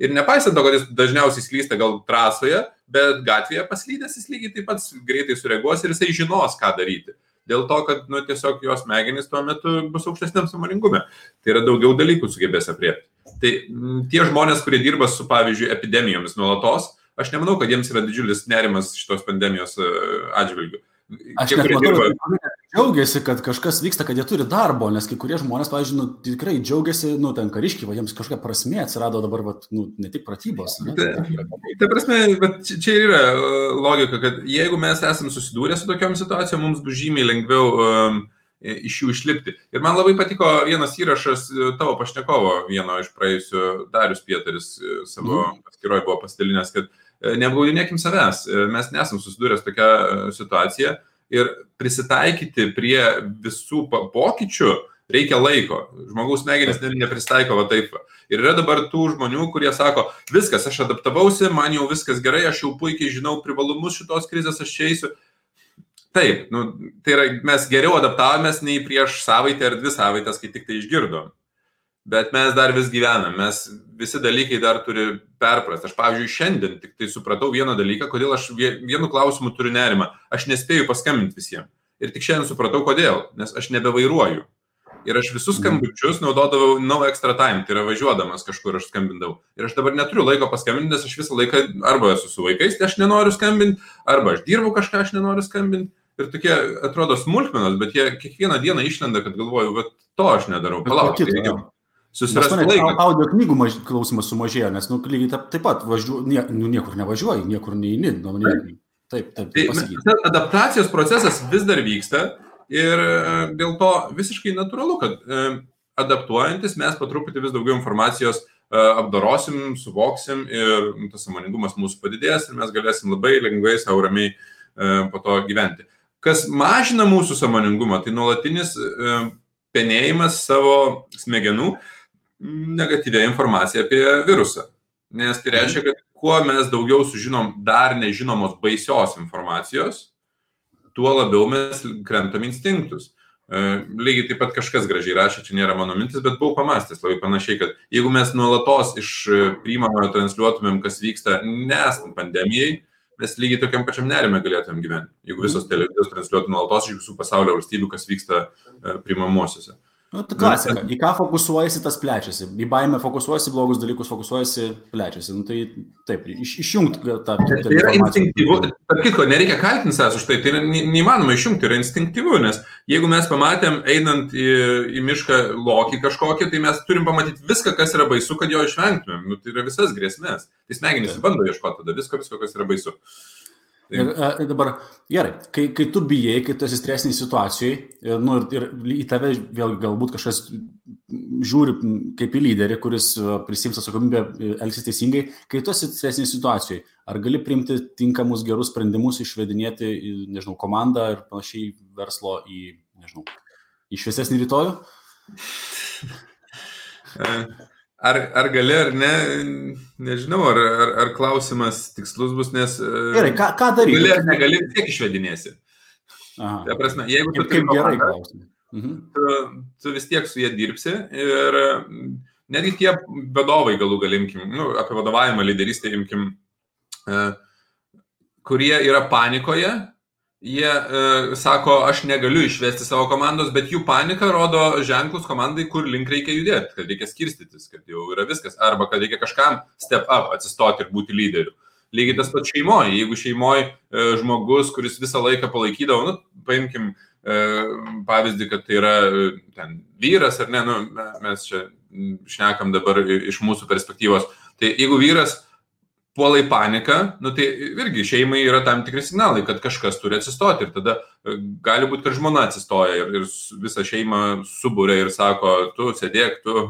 Ir nepaisant to, kad jis dažniausiai slysta gal trasoje, bet gatvėje paslydęs jis lygiai taip pat greitai sureaguos ir jisai žinos, ką daryti. Dėl to, kad tiesiog jos smegenys tuo metu bus aukštesniam sąmoningume. Tai yra daugiau dalykų sugebės apriepti. Tai tie žmonės, kurie dirba su, pavyzdžiui, epidemijomis nuolatos, aš nemanau, kad jiems yra didžiulis nerimas šitos pandemijos atžvilgių. Aš net matau, kad džiaugiasi, kad kažkas vyksta, kad jie turi darbo, nes kai kurie žmonės, pavyzdžiui, tikrai džiaugiasi, ten kariškiai, jiems kažkokia prasmė atsirado dabar, ne tik pratybos. Ta prasme, čia ir yra logika, kad jeigu mes esam susidūrę su tokiom situacijom, mums bus žymiai lengviau iš jų išlipti. Ir man labai patiko vienas įrašas tavo pašnekovo, vieno iš praėjusių, Darius Pietaris savo paskyroje buvo pasidalinęs, kad neapgaudinėkim savęs, mes nesam susidūrę su tokia situacija ir prisitaikyti prie visų pokyčių reikia laiko. Žmogaus smegenys nepristaiko va taip. Ir yra dabar tų žmonių, kurie sako, viskas, aš adaptavausi, man jau viskas gerai, aš jau puikiai žinau privalumus šitos krizės, aš čia eisiu. Taip, tai yra, mes geriau adaptavomės nei prieš savaitę ar 2 savaitės, kai tik tai išgirdom. Bet mes dar vis gyvenam, mes visi dalykai dar turi perprasti. Aš, pavyzdžiui, šiandien tik tai supratau vieną dalyką, kodėl aš vienu klausimu turiu nerimą. Aš nespėju paskambinti visiems. Ir tik šiandien supratau, kodėl, nes aš nebevairuoju. Ir aš visus skambučius naudodavau no extra time, tai yra važiuodamas kažkur aš skambindavau. Ir aš dabar neturiu laiko paskambinti, nes aš visą laiką arba esu su vaikais, tai aš nenoriu skambinti, arba aš dirbu kažką, aš nenoriu skambinti. Ir tokie atrodo smulkmenos, bet jie kiekvieną dieną išlenda, kad galvoju, bet to aš nedarau. Palauk, susirasti laiką. Audio knygų klausimas sumažėjo, nes lygiai taip pat niekur nevažiuoji, niekur neini. Taip. Adaptacijos procesas vis dar vyksta ir dėl to visiškai natūralu, kad adaptuojantis mes po truputį vis daugiau informacijos apdorosim, suvoksim ir tas sąmoningumas mūsų padidės ir mes galėsim labai lengvai, sau ramiai po to gyventi. Kas mažina mūsų sąmoningumą, tai nuolatinis penėjimas savo smegenų negatyvę informaciją apie virusą. Nes tai reiškia, kad kuo mes daugiau sužinom dar nežinomos baisios informacijos, tuo labiau mes krentam instinktus. Lygiai taip pat kažkas gražiai rašė, čia nėra mano mintis, bet buvau pamastęs labai panašiai, kad jeigu mes nuolatos iš priimamojo transliuotumėm, kas vyksta nesant pandemijai, mes lygiai tokiam pačiam nerime galėtumėm gyventi. Jeigu visos televizijos transliuotų nuolatos iš visų pasaulio valstybių, kas vyksta priimamosiose. Tai klasika. Į ką fokusuojasi, tas plečiasi. Į baimę fokusuojasi, blogus dalykus fokusuojasi, plečiasi. Tai taip, išjungti tą informaciją. Tai yra instinktyvu. Tarp kitko, nereikia kaltinti savęs už tai. Tai yra neįmanoma išjungti, yra instinktyvu, nes jeigu mes pamatėm, einant į mišką lokį kažkokį, tai mes turim pamatyti viską, kas yra baisu, kad jo išvengtumėm. Tai yra visas grėsmės. Tai smegenys bando ieškoti tada visko, kas yra baisu. Ir dabar, gerai, kai tu bijai, kai tu esi stresiniai situacijai, ir į tave vėl galbūt kažkas žiūri kaip į lyderį, kuris prisiims atsakomybę, elgsis teisingai, kai tu esi stresiniai situacijai, ar gali priimti tinkamus gerus sprendimus, išvedinėti, nežinau, komandą ir panašiai verslo į šviesesnį rytojų? Ar gali, ar ne, nežinau, ar klausimas tikslus bus, nes... Gerai, ką daryti? Gali ar negali, tiek išvedinėsi. Ta prasme, jeigu tu turi komandą, tu vis tiek su jie dirbsi ir netgi tie vadovai galų galimkim, apie vadovavimą, lyderystę imkim, kurie yra panikoje, jie sako, aš negaliu išvesti savo komandos, bet jų panika rodo ženklus komandai, kur link reikia judėti, kad reikia skirstytis, kad jau yra viskas, arba kad reikia kažkam step up, atsistoti ir būti lyderiu. Lygiai tas pats šeimoje. Jeigu šeimoje žmogus, kuris visą laiką palaikydavo, paimkim pavyzdį, kad tai yra ten vyras, ar ne, mes čia šnekam dabar iš mūsų perspektyvos, tai jeigu vyras puola į paniką, tai irgi šeimai yra tam tikri signalai, kad kažkas turi atsistoti ir tada gali būti, kad žmona atsistoja ir visą šeimą subūrė ir sako, tu sėdėk, tu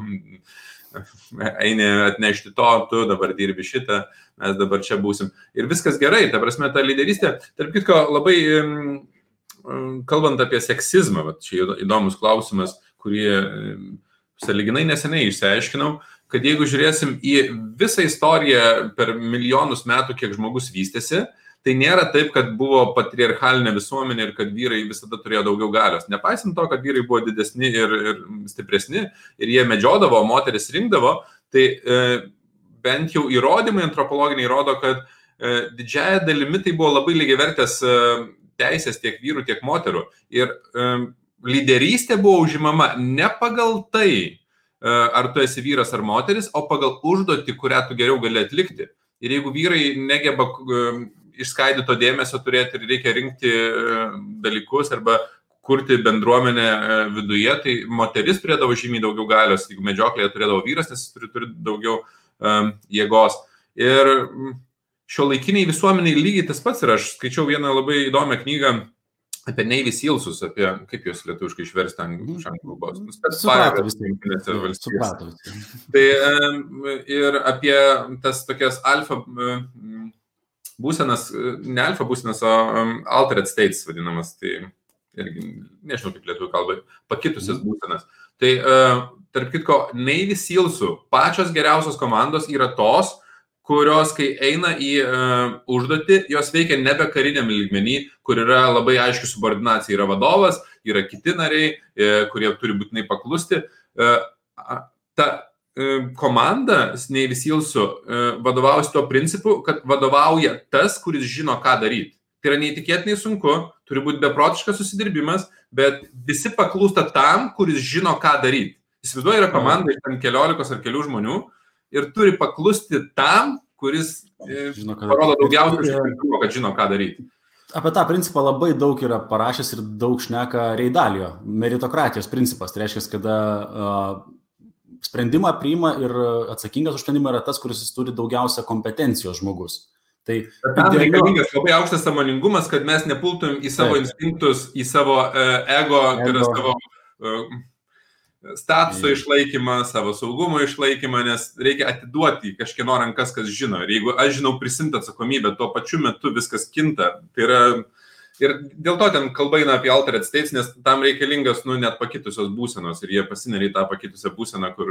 eini atnešti to, tu dabar dirbi šitą, mes dabar čia būsim. Ir viskas gerai, ta prasme, ta lyderystė, tarp kitko, labai kalbant apie seksizmą, čia įdomus klausimas, kurį sąlyginai neseniai išsiaiškinau, kad jeigu žiūrėsim į visą istoriją per milijonus metų, kiek žmogus vystėsi, tai nėra taip, kad buvo patriarchalinė visuomenė ir kad vyrai visada turėjo daugiau galios. Nepaisant to, kad vyrai buvo didesni ir stipresni ir jie medžiodavo, moteris rinkdavo, tai bent jau įrodymai antropologiniai rodo, kad didžiąją dalimi tai buvo labai lygiavertės teisės tiek vyrų, tiek moterų. Ir lyderystė buvo užimama ne pagal tai, ar tu esi vyras ar moteris, o pagal užduotį, kurią tu geriau gali atlikti. Ir jeigu vyrai negeba išskaidyto dėmesio turėti ir reikia rinkti dalykus arba kurti bendruomenę viduje, tai moteris turėdavo žymiai daugiau galios, jeigu medžioklėje turėdavo vyras, nes jis turi daugiau jėgos. Ir šiuolaikiniai visuomeniai lygiai tas pats ir aš skaičiau vieną labai įdomią knygą apie Navy Sealsus, apie, kaip jūs lietuviškai išversti anglų kalbos. Suprato. Tai ir apie tas tokias alfa būsenas, ne alfa būsenas, o altered states vadinamas, tai irgi, nežinau kaip lietuvių kalbai, pakitusias būsenas. Tai, tarp kitko, Navy Sealsų pačios geriausios komandos yra tos, kurios, kai eina į užduotį, jos veikia nebe kariniam lygmenį, kur yra labai aiški subordinacija. Yra vadovas, yra kiti nariai, kurie turi būtinai paklusti. Ta komanda Navy Sealsų vadovaujasi tuo principu, kad vadovauja tas, kuris žino, ką daryti. Tai yra neįtikėtinai sunku, turi būti beprotiškas susidirbimas, bet visi paklūsta tam, kuris žino, ką daryti. Įsivaizduoju, yra komanda iš 15 ar kelių žmonių, ir turi paklusti tam, kuris parodo daugiausiai užtikrintumo, kad žino, ką daryti. Apie tą principą labai daug yra parašęs ir daug šneka Ray Dalio, meritokratijos principas. Tai reiškia, kada sprendimą priima ir atsakingas už sprendimą yra tas, kuris turi daugiausia kompetencijos žmogus. Tai tam reikalingas labai aukštas sąmoningumas, kad mes nepultum į savo instinktus, į savo ego, tai yra savo statuso išlaikymą, savo saugumo išlaikymą, nes reikia atiduoti kažkieno rankas, kas žino. Ir jeigu aš žinau prisimti atsakomybę, tuo pačiu metu viskas kinta. Tai yra, ir dėl to ten kalba eina apie altered states, nes tam reikalingas net pakitusios būsenos ir jie pasineria į tą pakitusią būseną, kur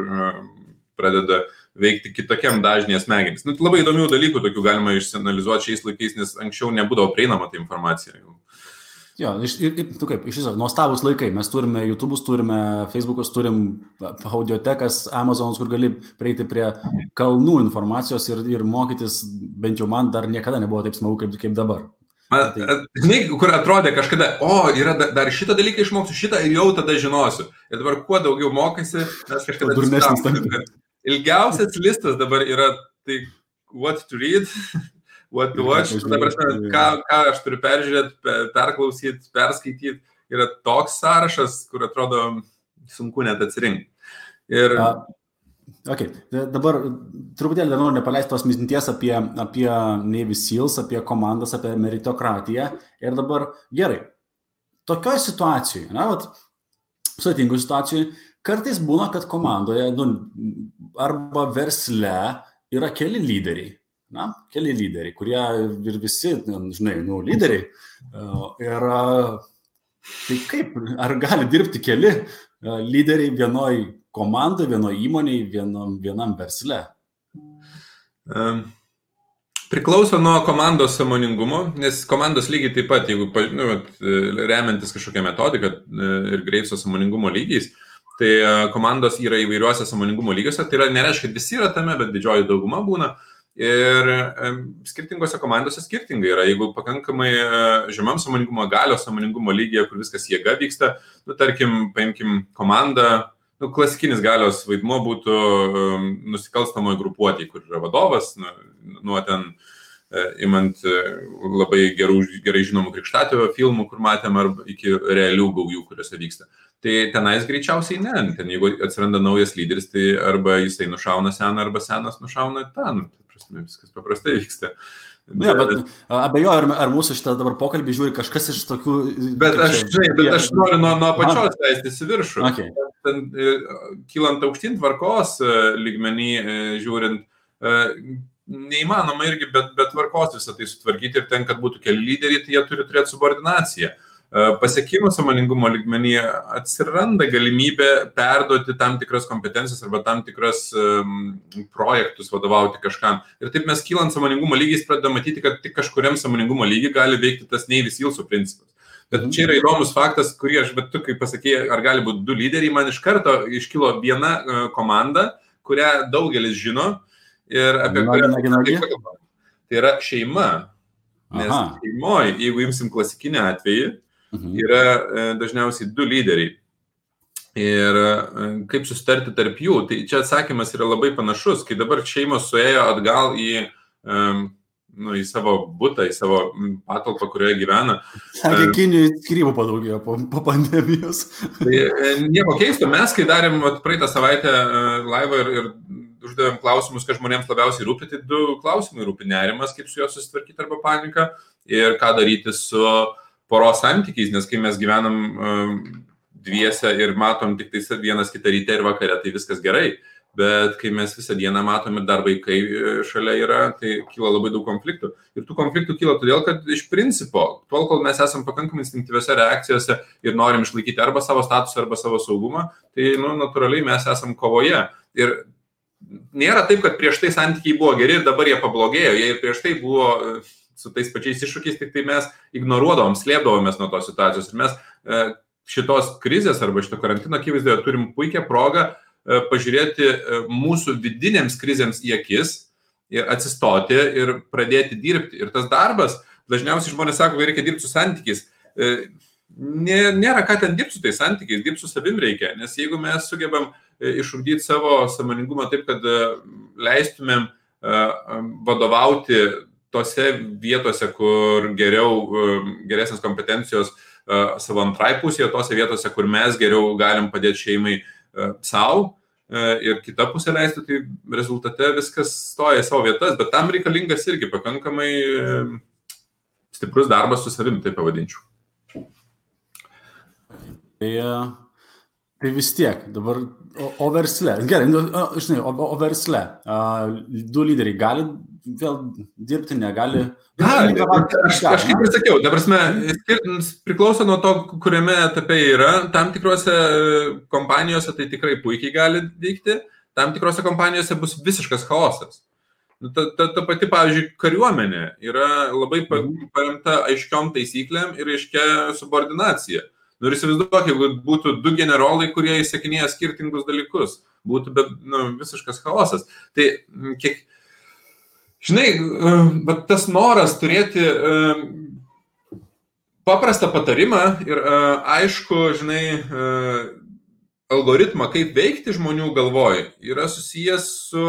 pradeda veikti kitokiam dažnėje smegenys. Labai įdomių dalykų tokių galima išsianalizuoti šiais laikais, nes anksčiau nebūdavo prieinama ta informacija. Jo, iš viso, nuostabus laikai. Mes turime YouTube'us, turime Facebook'us, turim audiotekas, Amazon'us, kur gali prieiti prie kalnų informacijos ir mokytis, bent jau man dar niekada nebuvo taip smagu kaip dabar. Žinai, kur atrodė kažkada, yra dar šitą dalyką išmoksiu, šitą ir jau tada žinosiu. Ir dabar kuo daugiau mokaisi, mes kažkada atsistavom. Ilgiausias listas dabar yra tai what to read, what to watch, ką aš turiu peržiūrėti, perklausyti, perskaityti, yra toks sąrašas, kur atrodo sunku net atsirinkti. Ir... Dabar truputėlį dar noriu nepaleisti tos minties apie Navy Seals, apie komandas, apie meritokratiją. Ir dabar gerai, tokioj situacijoje, sudėtingoj situacijoje, kartais būna, kad komandoje arba versle yra keli lyderiai. Keli lyderiai, kurie ir visi, lyderiai. Ir tai kaip, ar gali dirbti keli lyderiai vienoj komandai, vienoj įmonėj, vienam versle? Priklauso nuo komandos sąmoningumo, nes komandos lygiai taip pat, jeigu remiantis kažkokią metodiką ir Graveso sąmoningumo lygiais, tai komandos yra įvairiuose sąmoningumo lygiuose, tai nereiškia, kad visi yra tame, bet didžioji dauguma būna. Ir skirtingose komandose skirtingai yra. Jeigu pakankamai žemam sąmoningumo, galios sąmoningumo lygyje, kur viskas jėga vyksta, tarkim, paimkim komandą, klasikinis galios vaidmuo būtų nusikalstamoje grupuotėje, kur yra vadovas, nuo ten imant labai gerai žinomų Krikštatėvio filmų, kur matėm, arba iki realių gaujų, kuriuose vyksta. Tai tenais greičiausiai ne. Ten jeigu atsiranda naujas lyderis, tai arba jisai nušauna seną, arba senas nušauna tą. Viskas paprastai vyksta. Bet abejoju, ar mūsų šitą dabar pokalbį žiūri kažkas iš tokių... Bet aš noriu nuo pačios leistis į viršų. Okay. Kylant aukštyn tvarkos lygmenį žiūrint, neįmanoma irgi be tvarkos visą tai sutvarkyti ir ten, kad būtų keli lyderiai, tai jie turi turėti subordinaciją. Pasiekimo sąmoningumo lygmenyje atsiranda galimybė perduoti tam tikras kompetencijas arba tam tikras projektus vadovauti kažkam. Ir taip mes kylant sąmoningumo lygiais pradedame matyti, kad tik kažkuriam sąmoningumo lygiai gali veikti tas Navy Sealsų principas. Bet čia yra įdomus faktas, kurį aš, bet tu, kaip pasakėjai, ar gali būti du lyderiai, man iš karto iškilo viena komanda, kurią daugelis žino ir apie kurią kalbame. Tai yra šeima. Nes šeimoje, jeigu imsim klasikinį atvejį, yra dažniausiai du lyderiai. Ir kaip susitarti tarp jų, tai čia atsakymas yra labai panašus, kai dabar šeimos suėjo atgal į į savo butą, į savo patalpą, kurioje gyvena. Sakė, Kinijai skyrybų padaugėjo po pandemijos. Tai nieko keisto, mes, kai darėm praeitą savaitę laivą ir uždavėm klausimus, kad žmonėms labiausiai rūpi, tai 2 klausimai rūpi: nerimas, kaip su juo susitvarkyti arba panika, ir ką daryti su poros santykiais, nes kai mes gyvenam dviese ir matom tik tai vienas kitą ryte ir vakare, tai viskas gerai. Bet kai mes visą dieną matom ir dar vaikai šalia yra, tai kyla labai daug konfliktų. Ir tų konfliktų kyla todėl, kad iš principo, tol, kol mes esam pakankamai instinktyviose reakcijose ir norim išlaikyti arba savo statusą, arba savo saugumą, tai natūraliai mes esam kovoje. Ir nėra taip, kad prieš tai santykiai buvo geri ir dabar jie pablogėjo. Jie ir prieš tai buvo su tais pačiais iššūkiais, tik tai mes ignoruodavom, slėpdavomės nuo tos situacijos. Ir mes šitos krizės arba šito karantino akivaizdoje turim puikią progą pažiūrėti mūsų vidinėms krizėms į akis ir atsistoti ir pradėti dirbti. Ir tas darbas, dažniausiai žmonės sako, kad reikia dirbti su santykiais. Nėra ką ten dirbti su tais santykiais, dirbti su savim reikia. Nes jeigu mes sugebam išugdyti savo sąmoningumą taip, kad leistumėm vadovauti tose vietose, kur geresnės kompetencijos savo antrai pusėje, tose vietose, kur mes geriau galim padėti šeimai savo ir kita pusė leisti, tai rezultate viskas stoja į savo vietas, bet tam reikalingas irgi pakankamai stiprus darbas su savimi, tai pavadinčiau. Tai vis tiek, dabar o versle, gerai, žinai, o versle, 2 lyderiai gali vėl dirbti, negali? Aš kaip ir sakiau, ta prasme, priklauso nuo to, kuriame etape yra. Tam tikrose kompanijose tai tikrai puikiai gali veikti, tam tikrose kompanijose bus visiškas chaosas. Ta pati, pavyzdžiui, kariuomenė yra labai paremta aiškiom taisyklėm ir aiškia subordinacija. Ir įsivaizduok, jeigu būtų 2 generolai, kurie įsakinėja skirtingus dalykus, būtų visiškas chaosas. Tai žinai, tas noras turėti paprastą patarimą ir aišku, žinai, algoritmą, kaip veikti žmonių galvoj, yra susijęs su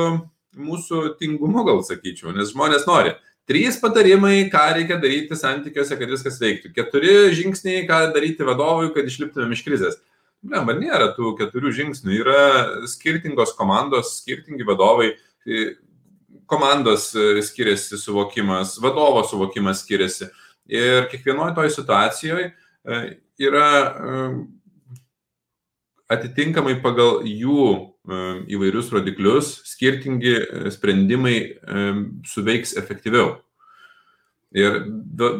mūsų tingumu, gal sakyčiau, nes žmonės nori. 3 patarimai, ką reikia daryti santykiuose, kad viskas veiktų. 4 žingsniai, ką daryti vadovui, kad išliptumėm iš krizės. Nėra tų 4 žingsnių. Yra skirtingos komandos, skirtingi vadovai. Komandos skiriasi suvokimas, vadovo suvokimas skiriasi. Ir kiekvienoje toj situacijoje yra atitinkamai pagal jų įvairius rodiklius skirtingi sprendimai suveiks efektyviau. Ir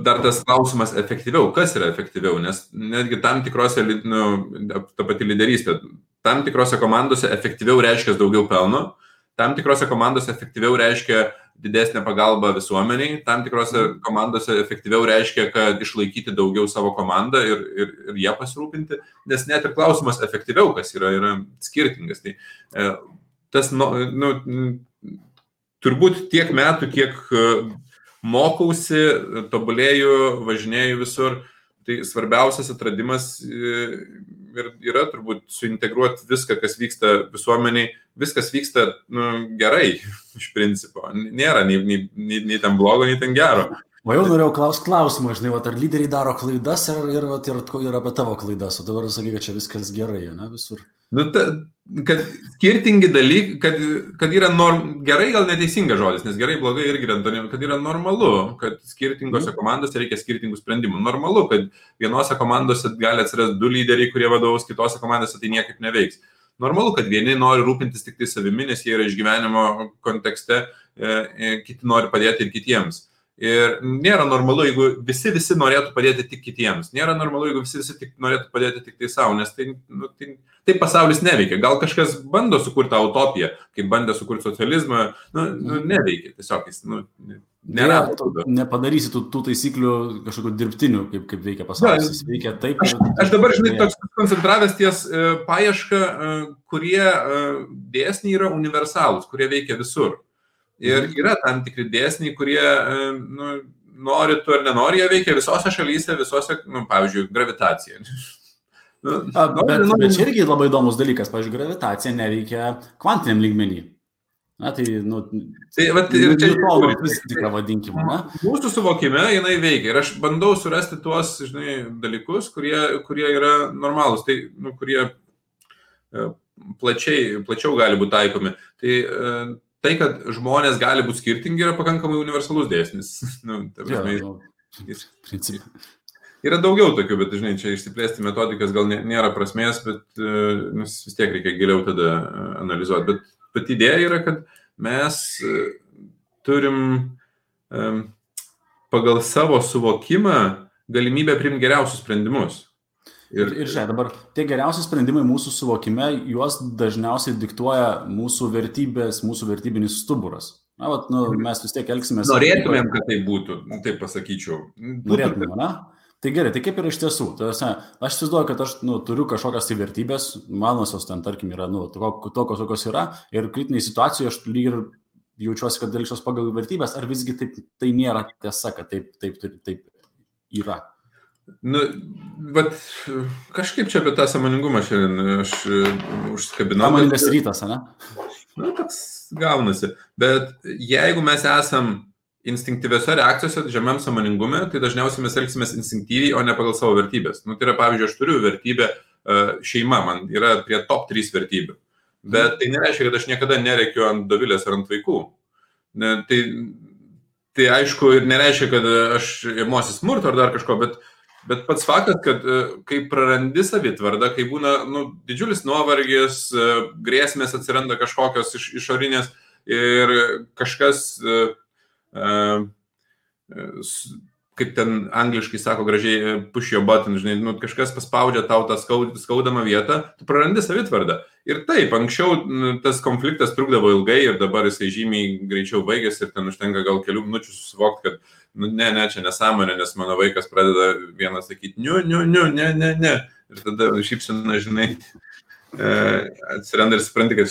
dar tas klausimas efektyviau. Kas yra efektyviau? Nes netgi tam tikrose, ta pati lyderystė, tam tikrose komandose efektyviau reiškia daugiau pelno, tam tikrose komandose efektyviau reiškia didesnė pagalba visuomeniai, tam tikrose komandose efektyviau reiškia, kad išlaikyti daugiau savo komandą ir ją pasirūpinti, nes net ir klausimas efektyviau, kas yra skirtingas. Tai tas, turbūt tiek metų, kiek mokausi, tobulėju, važinėju visur, tai svarbiausias atradimas yra turbūt suintegruoti viską, kas vyksta visuomeniai. Viskas vyksta gerai, iš principo. Nėra nei ten blogo, nei ten gero. O jau norėjau klausimą, žinai, ar lyderiai daro klaidas ir apie tavo klaidas, o dabar sakai, kad čia viskas gerai, ne, visur. Kad skirtingi dalykai, kad yra gerai, gal neteisingas žodis, nes gerai, blogai irgi yra, kad yra normalu, kad skirtingose komandose reikia skirtingų sprendimų. Normalu, kad vienose komandose gali atsirasti 2 lyderiai, kurie vadovaus, kitose komandose tai niekaip neveiks. Normalu, kad vieni nori rūpintis tik tai savimi, nes jie yra išgyvenimo kontekste, kiti nori padėti ir kitiems. Ir nėra normalu, jeigu visi norėtų padėti tik kitiems. Nėra normalu, jeigu visi norėtų padėti tik tai savo, nes tai pasaulis neveikia. Gal kažkas bando sukurti utopiją, kaip bandė sukurti socializmą, neveikia. Tiesiog jis nėra. Nepadarysi tų taisyklių kažkokių dirbtinių, kaip veikia pasaulis. Jis veikia taip. Aš dabar, žinai, toks koncentravęs ties paiešką, kurie dėsniai yra universalūs, kurie veikia visur. Ir yra tam tikri dėsniai, kurie nori tu ar nenori, jie veikia visose šalyse, pavyzdžiui, gravitacija. Bet čia irgi labai įdomus dalykas, pavyzdžiui, gravitacija neveikia kvantiniam lygmenį. Na, tai, ir čia viską vadinkime, ne? Mūsų suvokime jinai veikia ir aš bandau surasti tuos, dalykus, kurie yra normalūs, tai, kurie plačiau gali būti taikomi. Tai, kad žmonės gali būti skirtingi, yra pakankamai universalus dėsnis. Yra daugiau tokių, bet, čia išsiplėsti metodikas gal nėra prasmės, bet vis tiek reikia giliau tada analizuoti. Bet idėja yra, kad mes turim pagal savo suvokimą galimybę priimti geriausius sprendimus. Ir žiūrėk, dabar tie geriausi sprendimai mūsų suvokime, juos dažniausiai diktuoja mūsų vertybės, mūsų vertybinis stuburas. Mes vis tiek elgsimės. Norėtumėm, kad tai būtų, taip pasakyčiau. Norėtumėm, ne? Tai gerai, tai kaip yra iš tiesų? Aš įsivaizduoju, kad aš turiu kažkokias tai vertybės, manosios ten, tarkim, yra tokios, kokios yra, ir kritiniai situacijoje aš lyg ir jaučiuosi, kad elgsiuos pagal vertybės, ar visgi tai nėra tiesa, kad taip yra? Bet kažkaip čia apie tą sąmoningumą šiandien aš užsikabinau. Sąmoningas rytas, ne? Toks gaunasi. Bet jeigu mes esam instinktyviose reakcijose, žemiam sąmoningume, tai dažniausiai mes elgsimės instinktyviai, o ne pagal savo vertybės. Tai yra, pavyzdžiui, aš turiu vertybę šeima, man yra prie top 3 vertybių. Bet tai nereiškia, kad aš niekada nerėkiu ant Dovilės ar ant vaikų. Tai aišku, ir nereiškia, kad aš imuosi smurto ar dar kažko, bet pats faktas, kad kai prarandi savitvardą, kai būna didžiulis nuovargis, grėsmės atsiranda kažkokios išorinės ir kažkas kaip ten angliškai sako gražiai, push your button, kažkas paspaudžia tau tą skaudamą vietą, tu prarandi savitvardą. Ir taip, anksčiau tas konfliktas trukdavo ilgai ir dabar jisai žymiai greičiau baigėsi ir ten užtenka gal kelių minučių susivokti, kad ne, čia nesąmonė, nes mano vaikas pradeda vienas sakyti, ne. Ir tada šypsina, atsiranda ir supranti, kad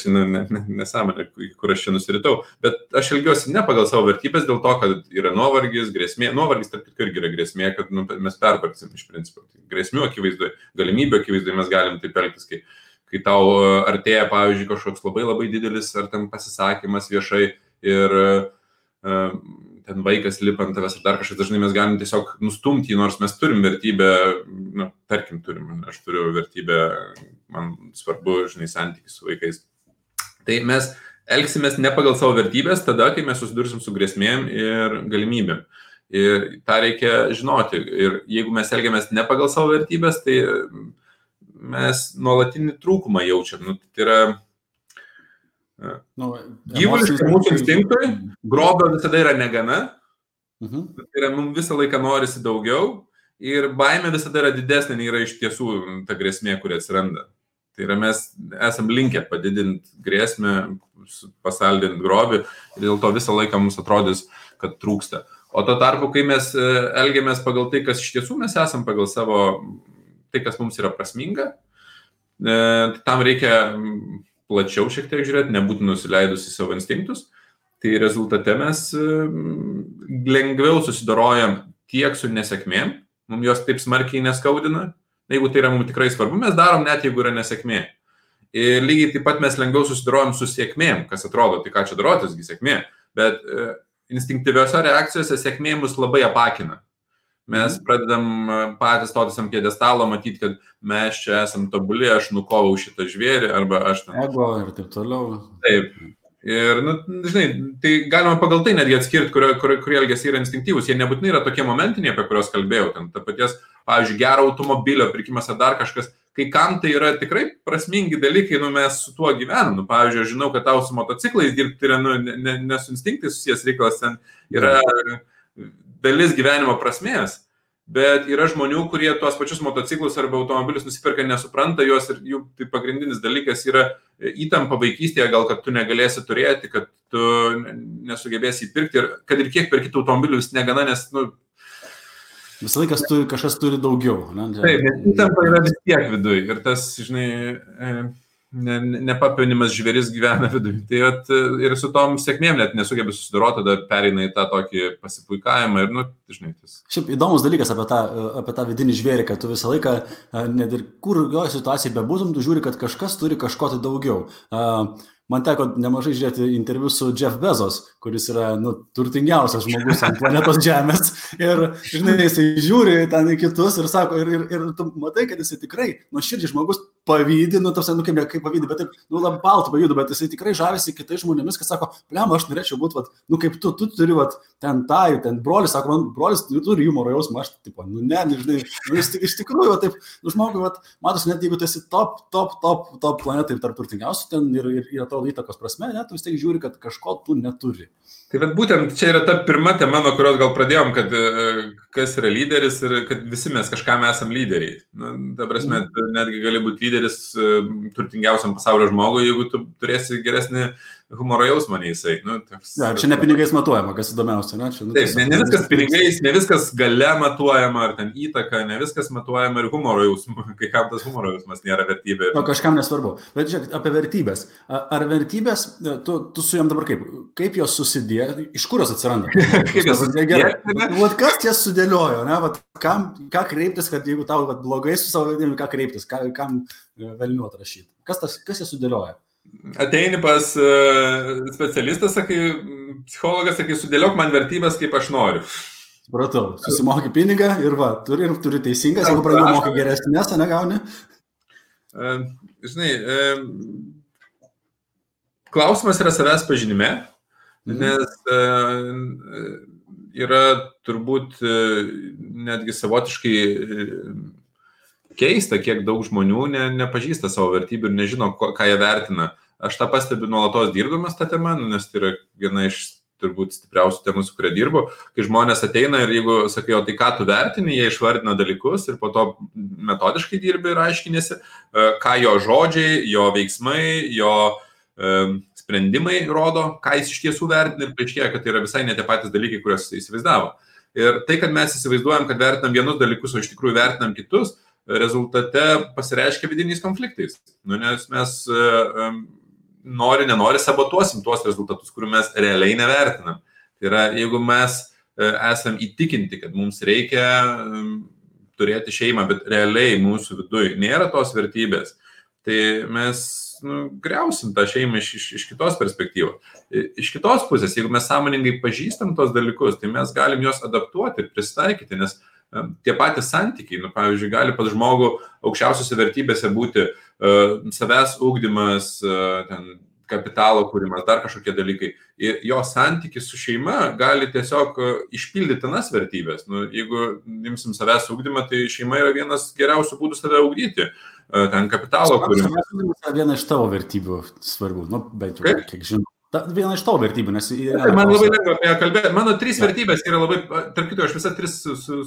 nesąmonė, kur aš čia nusiritau. Bet aš elgiuosi ne pagal savo vertybės dėl to, kad yra nuovargis, grėsmė. Nuovargis tarp kitko irgi yra grėsmė, kad mes pervargsim iš principo. Grėsmių akivaizdoje, galimybių akivaizdoje mes galim taip elgtis, kai tau artėja, pavyzdžiui, kažkoks labai labai didelis ar ten pasisakymas viešai ir ten vaikas lipa ant tavęs ar dar kažkas, dažnai mes galim tiesiog nustumti, nors mes turim vertybę, tarkim aš turiu vertybę, man svarbu, santykis su vaikais. Tai mes elgsimės ne pagal savo vertybės tada, kai mes susidursim su grėsmėm ir galimybėm. Ir tą reikia žinoti. Ir jeigu mes elgiamės ne pagal savo vertybės, tai mes nuolatinį trūkumą jaučiam. Tai yra gyvuliškai mūsų instinktui, grobio visada yra negana, tai yra mums visą laiką norisi daugiau ir baimė visada yra didesnė, nei yra iš tiesų ta grėsmė, kuri atsiranda. Tai yra mes esam linkę padidinti grėsmę, pasaldinti grobį ir dėl to visą laiką mums atrodys, kad trūksta. O to tarpu, kai mes elgiamės pagal tai, kas iš tiesų mes esam pagal savo, tai, kas mums yra prasminga, tam reikia plačiau šiek tiek žiūrėti, nebūti nusileidus į savo instinktus, tai rezultate mes lengviau susidorojam tiek su nesėkmėm, mums jos taip smarkiai neskaudina, jeigu tai yra mums tikrai svarbu, mes darom net jeigu yra nesėkmė. Ir lygiai taip pat mes lengviau susidorojam su sėkmėm, kas atrodo, tai ką čia darotisgi sėkmė, bet instinktyviose reakcijose sėkmė mus labai apakina. Mes pradedam patys stotis ant pjedestalo, matyti, kad mes čia esam tobuli, aš nukovau šitą žvėrį, arba aš ten... Ego ir taip toliau. Taip. Ir, tai galima pagal tai netgi atskirti, kurie elgesiai yra instinktyvūs. Jie nebūtinai yra tokie momentiniai, apie kuriuos kalbėjau. Ten ta paties, pavyzdžiui, gero automobilio pirkimas ar dar kažkas. Kai kam tai yra tikrai prasmingi dalykai, mes su tuo gyvenam. Pavyzdžiui, aš žinau, kad tau su motociklais dirbti yra ne su instinktais susijęs reikalas, ten yra dalis gyvenimo prasmės, bet yra žmonių, kurie tuos pačius motociklus arba automobilius nusiperka, nesupranta juos ir jų tai pagrindinis dalykas yra įtampa vaikystėje, gal kad tu negalėsi turėti, kad tu nesugebėsi įpirkti ir kad ir kiek perkit automobilių vis negana, nes, visą laiką kažkas turi daugiau. Taip, nes įtampa yra vis tiek viduj ir tas, nepapinimas žvėris gyvena viduje. Tai ir su tom sėkmėm net nesugebė susidoroti, tada pereina į tą tokį pasipuikavimą ir, tas. Šiaip įdomus dalykas apie tą vidinį žvėrį, kad tu visą laiką, net ir kur jo situacija bebūtum, tu žiūri, kad kažkas turi kažko tai daugiau. man teko nemažai žiūrėti interviu su Jeff Bezos, kuris yra, turtingiausias žmogus ant planetos Žemės. Ir, žinai, jisai žiūri ten į kitus ir sako, ir tu matai, kad jisai tikrai, nuoširdžiai žmogus pavydi, kaip pavydi, bet taip, labai baltų pavydu, bet jisai tikrai žavisi kitais žmonėmis, kad sako, blem, aš norėčiau būti, kaip tu turi, ten brolis, sako, man brolis turi humoro jausmą, aš, tipo, žinai, iš tikrųjų, taip, žmogui, matosi, net jeigu tu esi top planetai tarp turtingiausių ten ir atrodo įtakos prasme, tu vis tiek žiūri, kad kažko tu neturi. Tai būtent čia yra ta pirma tema, nuo kurios gal pradėjom, kad kas yra lyderis ir kad visi mes kažkam esam lyderiai. Ta prasme, netgi gali būti lyderis turtingiausiam pasaulio žmogui, jeigu tu turėsi geresnį humoro jausmą nei jisai. Čia ne pinigais matuojama, kas įdomiausia. Taip, ne viskas pinigais, ne viskas gale matuojama, ar ten įtaka, ne viskas matuojama ir humoro jausmu, kai kam tas humoro jausmas nėra vertybė. Kažkam nesvarbu. Bet žiūrėk, apie vertybės. Ar vertybės, tu su jom dabar kaip jos susidėjo, iš kur jos atsiranda? Kas jas sudėliojo, ne? Ką kreiptis, kad jeigu tau blogai su savo vertybėm, ką kreiptis, kam velnių atrašyti? Kas jas sudėlioja? Ateini pas specialistas, sakai, psichologas, sakai, sudėliok man vertybės, kaip aš noriu. Supratau, susimoki pinigą ir turi teisingas, jeigu pradėjau mokai geresnės, negauni? Žinai, klausimas yra savęs pažinime, nes yra turbūt netgi savotiškai keista, kiek daug žmonių nepažįsta savo vertybių ir nežino, ką jie vertina. Aš tą pastebiu nuolatos dirbdamas tą temą, nes tai yra viena iš turbūt stipriausių temų, su kuria dirbu, kai žmonės ateina ir jeigu sakai, o tai ką tu vertini, jie išvardina dalykus ir po to metodiškai dirbi ir aiškinėsi, ką jo žodžiai, jo veiksmai, jo sprendimai rodo, ką jis iš tiesų vertina ir paaiškėja, kad tai yra visai ne tie patys dalykai, kuriuos jis įsivaizdavo. Ir tai, kad mes įsivaizduojam, kad vertinam vienus dalykus, o iš tikrųjų vertinam kitus, rezultate pasireiškia vidiniais konfliktais. Nes mes nenori sabotuosim tuos rezultatus, kurių mes realiai nevertinam. Tai yra, jeigu mes esam įtikinti, kad mums reikia turėti šeimą, bet realiai mūsų viduje nėra tos vertybės, tai mes griausim tą šeimą iš kitos perspektyvos. Iš kitos pusės, jeigu mes sąmoningai pažįstam tos dalykus, tai mes galim juos adaptuoti ir pristaikyti, nes tie patys santykiai, pavyzdžiui, gali pas žmogų aukščiausiose vertybėse būti savęs ugdymas, kapitalo kūrimas, dar kažkokie dalykai. Ir jo santykis su šeima gali tiesiog išpildyti tas vertybės. Jeigu imsim savęs ugdymą, tai šeima yra vienas geriausių būdų save ugdyti. Ten kapitalo kūrimas. Savęs ugdymas yra viena iš tavo vertybių svarbių, bent jau kiek žinau. Viena iš tavo vertybių, nes... Man labai lengva apie ją kalbėti. Mano 3 vertybės yra labai... Tarp kitų, aš visą 3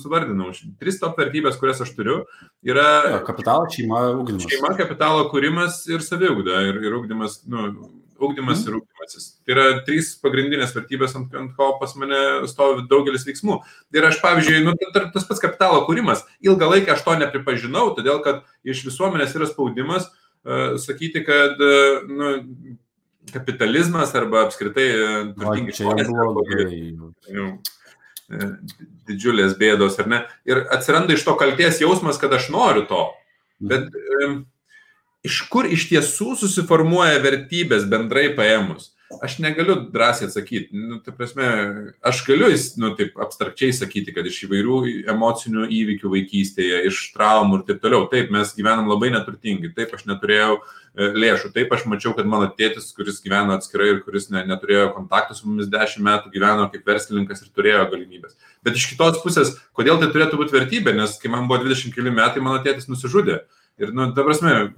suvardinau. 3 top vertybės, kurias aš turiu, yra... Kapitalo, šeima, ugdymas. Šeima, kapitalo kūrimas ir saviugda. Ir ugdymas, ugdymas ir ugdymasis. Tai yra 3 pagrindinės vertybės, ant ko pas mane stovi daugelis veiksmų. Ir aš, pavyzdžiui, tas pats kapitalo kūrimas, ilgą laiką aš to nepripažinau, todėl kad iš visuomenės yra spaudimas sakyti, kad... kapitalizmas arba apskritai turtingi žmonės, didžiulės bėdos, ar ne? Ir atsiranda iš to kaltės jausmas, kad aš noriu to. Bet iš kur iš tiesų susiformuoja vertybės bendrai paėmus? Aš negaliu drąsiai atsakyti. Tai prasme, aš galiu taip abstrakčiai sakyti, kad iš įvairių emocinių įvykių vaikystėje, iš traumų ir taip toliau. Taip, mes gyvenam labai neturtingi. Taip, aš neturėjau lėšų. Taip, aš mačiau, kad mano tėtis, kuris gyveno atskirai ir kuris neturėjo kontaktų su mumis 10 metų, gyveno kaip verslininkas ir turėjo galimybės. Bet iš kitos pusės, kodėl tai turėtų būti vertybė? Nes kai man buvo 20 keli metai, mano tėtis nusižudė. Ir, ta prasme,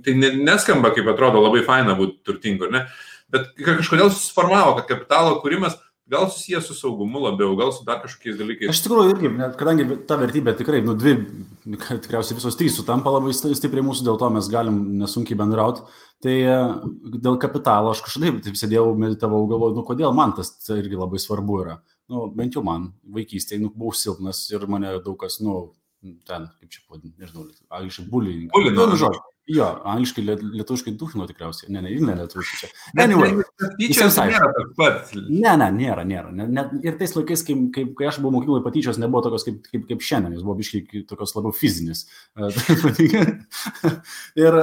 tai neskamba, kaip atrodo, labai faina būti turtingu, ne? Bet kažkodėl susiformavo, kad kapitalo kūrimas gal susijęs su saugumu labiau, gal su dar kažkokiais dalykais. Aš tikrųjų irgi, kadangi ta vertybė tikrai, tikriausiai visos 3 sutampa labai stipriai mūsų, dėl to mes galim nesunkiai bendrauti. Tai dėl kapitalo aš kažkaip taip sėdėjau, meditavau, galvoju, kodėl man tas irgi labai svarbu yra. Bent jau man vaikystėje, buvau silpnas ir mane daug kas, ten, kaip čia pavadinti, nežinau, angliškai bullying. Jo, angliškai, lietuviškai duchino tikriausiai. Ne, lietuviškai čia. Anyway. Nėra. Ir tais laikais, kai aš buvau mokykloje, patyčios nebuvo tokios kaip šiandien, jis buvo biškai tokios labiau fizinis. Ir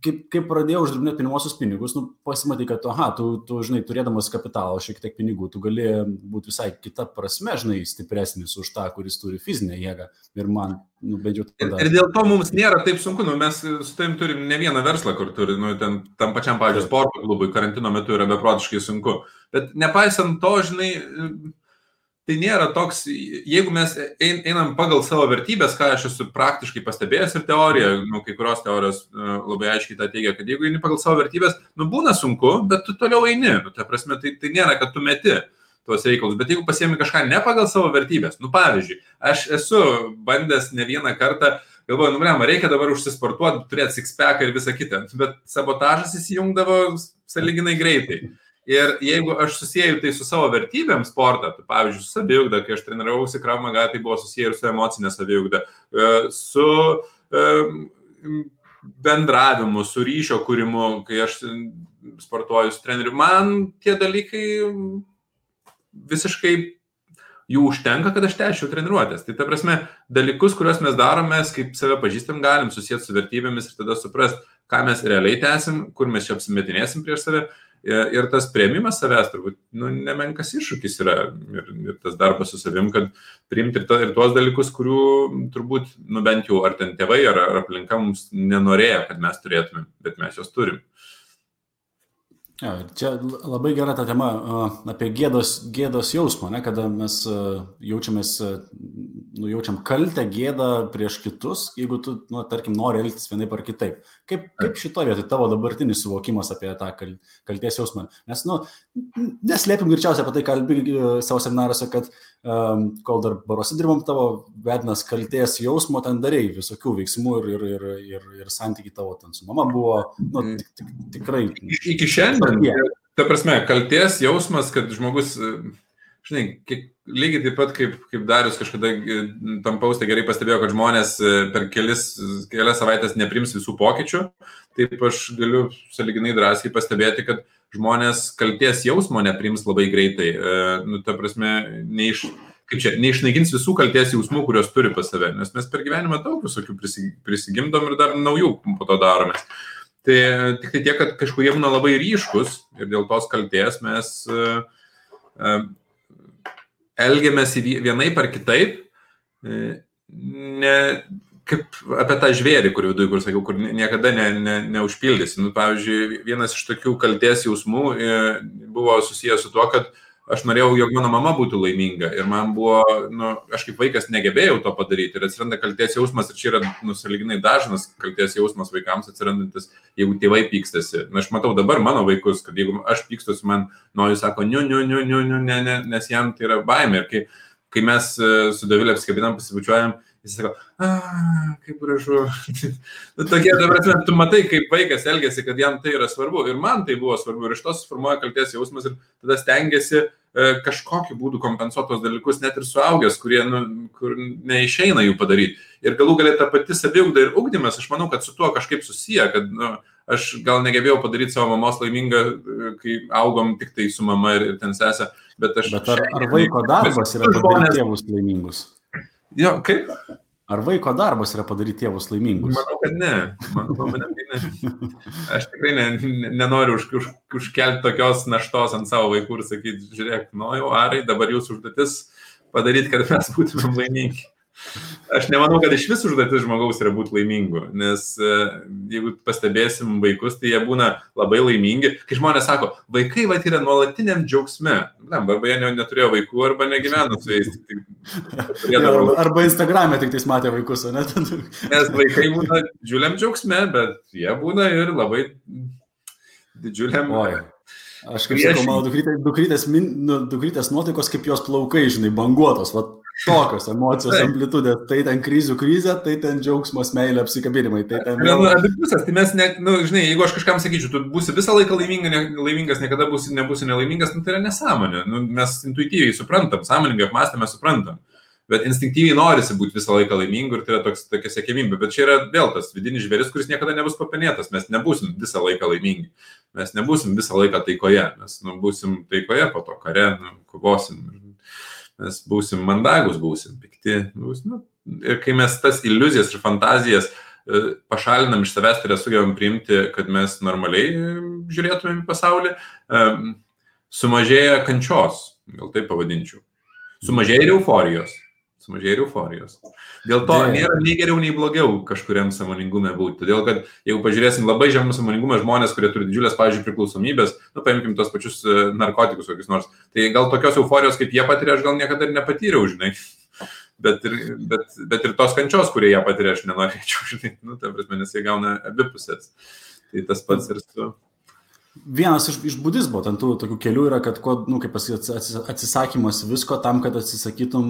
kaip pradėjau uždirbinėti pirmosius pinigus, pasimatai, kad, tu, žinai, turėdamas kapitalo šiek tiek pinigų, tu gali būti visai kita prasme, žinai, stipresnis už tą, kuris turi fizinę jėgą. Ir man, bent jau tada. Ir dėl to mums nėra taip sunku, mes su tavim turim ne vieną verslą, kur turi, tam pačiam, pavyzdžiui, sporto klubui, karantino metu yra beprotiškai sunku. Bet nepaisant to, žinai, tai nėra toks, jeigu mes einam pagal savo vertybės, ką aš esu praktiškai pastebėjęs ir teorija, kai kurios teorijos labai aiškiai tą teigia, kad jeigu eini pagal savo vertybės, būna sunku, bet tu toliau eini. Ta prasme, tai nėra, kad tu meti tuos reikalus, bet jeigu pasiemi kažką ne pagal savo vertybės, pavyzdžiui, aš esu bandęs ne vieną kartą, galvoju, reikia dabar užsisportuoti, turėti six-packą ir visą kitą, bet sabotažas įsijungdavo sąlyginai greitai. Ir jeigu aš susijęju tai su savo vertybėm sportą, tai pavyzdžiui, su saviugda, kai aš treniravausi Krav Maga, tai buvo susiję ir su emocinė saviugda, su bendravimu, su ryšio kūrimu, kai aš sportuoju su treneriu. Man tie dalykai visiškai jų užtenka, kad aš tęsčiau treniruotės. Tai ta prasme, dalykus, kuriuos mes darome, kaip save pažįstam, galim susijęti su vertybėmis ir tada suprast, ką mes realiai tęsim, kur mes čia apsimetinėsim prieš save. Ir tas priėmimas savęs turbūt nemenkas iššūkis yra ir tas darbas su savim, kad priimti ir tuos dalykus, kurių turbūt, bent jau ar ten tėvai, ar aplinka mums nenorėjo, kad mes turėtume, bet mes jos turim. Ja, čia labai gera ta tema apie gėdos jausmą, kada mes jaučiam kaltę, gėdą prieš kitus, jeigu tu, tarkim, nori elgtis vienaip ar kitaip. Kaip šitoje vietoje tavo dabartinis suvokimas apie tą kaltės jausmą? Nes, neslėpim greičiausiai apie tai kalbi savo seminaruose, kad kol dar baruose dirbom, tavo vedinas kaltės jausmo, ten darei visokių veiksmų ir santykiai tavo ten su mama buvo, tikrai. Iki šiandien, ta prasme, kaltės jausmas, kad žmogus, žinai, lygiai taip pat kaip Darius kažkada tam pauste gerai pastebėjo, kad žmonės per kelias savaitės neprims visų pokyčių, taip aš galiu sąlyginai drąsiai pastebėti, kad žmonės kaltės jausmo neprims labai greitai. Ta prasme, neišnaikins visų kaltės jausmų, kurios turi pas save, nes mes per gyvenimą daug visokių prisigimdom ir dar naujų po to daromės. Tai tik tai tiek, kad kažkurie būna labai ryškus ir dėl tos kaltės mes elgiamės vienaip ar kitaip, kaip apie tą žvėrį, kur viduje, kur sakiau, kur niekada neužpildysi. Pavyzdžiui, vienas iš tokių kaltės jausmų buvo susijęs su tuo, kad aš norėjau, jog mano mama būtų laiminga ir man buvo, aš kaip vaikas negebėjau to padaryti ir atsiranda kaltės jausmas ir čia yra sąlyginai dažnas kaltės jausmas vaikams atsirandantis, jeigu tėvai pykstasi. Aš matau dabar mano vaikus, kad jeigu aš pykstusi, man jis sako, ne, nes jam tai yra baimė. Ir kai mes su Dovilė apsikabinam, pasibučiuojam, jis sako, kaip gražu. Tokie, tu matai, kaip vaikas elgiasi, kad jam tai yra svarbu. Ir man tai buvo svarbu. Ir iš to suformuoja kaltės jausmas ir tada stengiasi kažkokiu būdu kompensuoti tos dalykus, net ir suaugęs, kur neišeina jų padaryti. Ir galų galia ta pati saviugda ir ugdymas, aš manau, kad su tuo kažkaip susiję, kad aš gal negebėjau padaryti savo mamos laimingą, kai augom tik tai su mama ir ten sesė. Bet ar vaiko darbas yra padaryti tėvus laimingus? Jo, kaip? Ar vaiko darbas yra padaryti tėvus laimingus? Manau, kad ne. Aš tikrai nenoriu užkelti tokios naštos ant savo vaikų ir sakyti, žiūrėk, jau Arai, dabar jūsų užduotis padaryti, kad mes būtumėm laimingi. Aš nemanau, kad iš vis užduotis žmogaus yra būti laimingu, nes jeigu pastebėsim vaikus, tai jie būna labai laimingi. Kai žmonės sako, vaikai yra nuolatiniam džiaugsme, arba jie neturėjo vaikų, arba negyveno su jais. Arba Instagram'e tik tais matė vaikus, o ne? Nes vaikai būna didžiuliam džiaugsme, bet jie būna ir labai didžiuliam... Aš kaip sakau, mano dukrytės nuotaikos kaip jos plaukai, žinai, banguotos, tokios emocijos amplitudės, tai ten krizių krizė, tai ten džiaugsmas, meilė, apsikabinimai, tai ten... Abipusės, tai mes, žinai, jeigu aš kažkam sakyčiau, tu būsi visą laiką laimingas, niekada nebūsi nelaimingas, tai yra nesąmonė. Mes intuityviai suprantam, sąmoningai apmąstame, suprantam. Bet instinktyviai norisi būti visą laiką laimingu ir tai yra tokia siekėmybė. Bet čia yra vėl tas vidinis žvėris, kuris niekada nebus papenėtas. Mes nebūsim visą laiką laimingi. Mes nebūsim visą laiką taikoje. Mes būsim taikoje, po to kare, kovosim. Mes būsim mandagus, būsim pikti. Ir kai mes tas iliuzijas ir fantazijas pašalinam iš savęs, tai sugebam priimti, kad mes normaliai žiūrėtumėm į pasaulį, sumažėja kančios, gal taip pavadinčiau. Sumažėja ir euforijos. Dėl to nėra nei geriau, nei blogiau kažkuriam sąmoningume būti. Todėl, kad jeigu pažiūrėsim labai žemą sąmoningumą žmonės, kurie turi didžiulės, pavyzdžiui, priklausomybės, paimkim tos pačius narkotikus kokius nors, tai gal tokios euforijos, kaip jie patiria, aš gal niekada ir nepatyriau, žinai. Bet ir tos kančios, kurie ją patiria, aš nenorėčiau, žinai. Ta prasme, nes jie gauna abipusės. Tai tas pats ir su... Vienas iš budizmo ten tų tokių kelių yra, kad kaip atsisakymas visko tam, kad atsisakytum,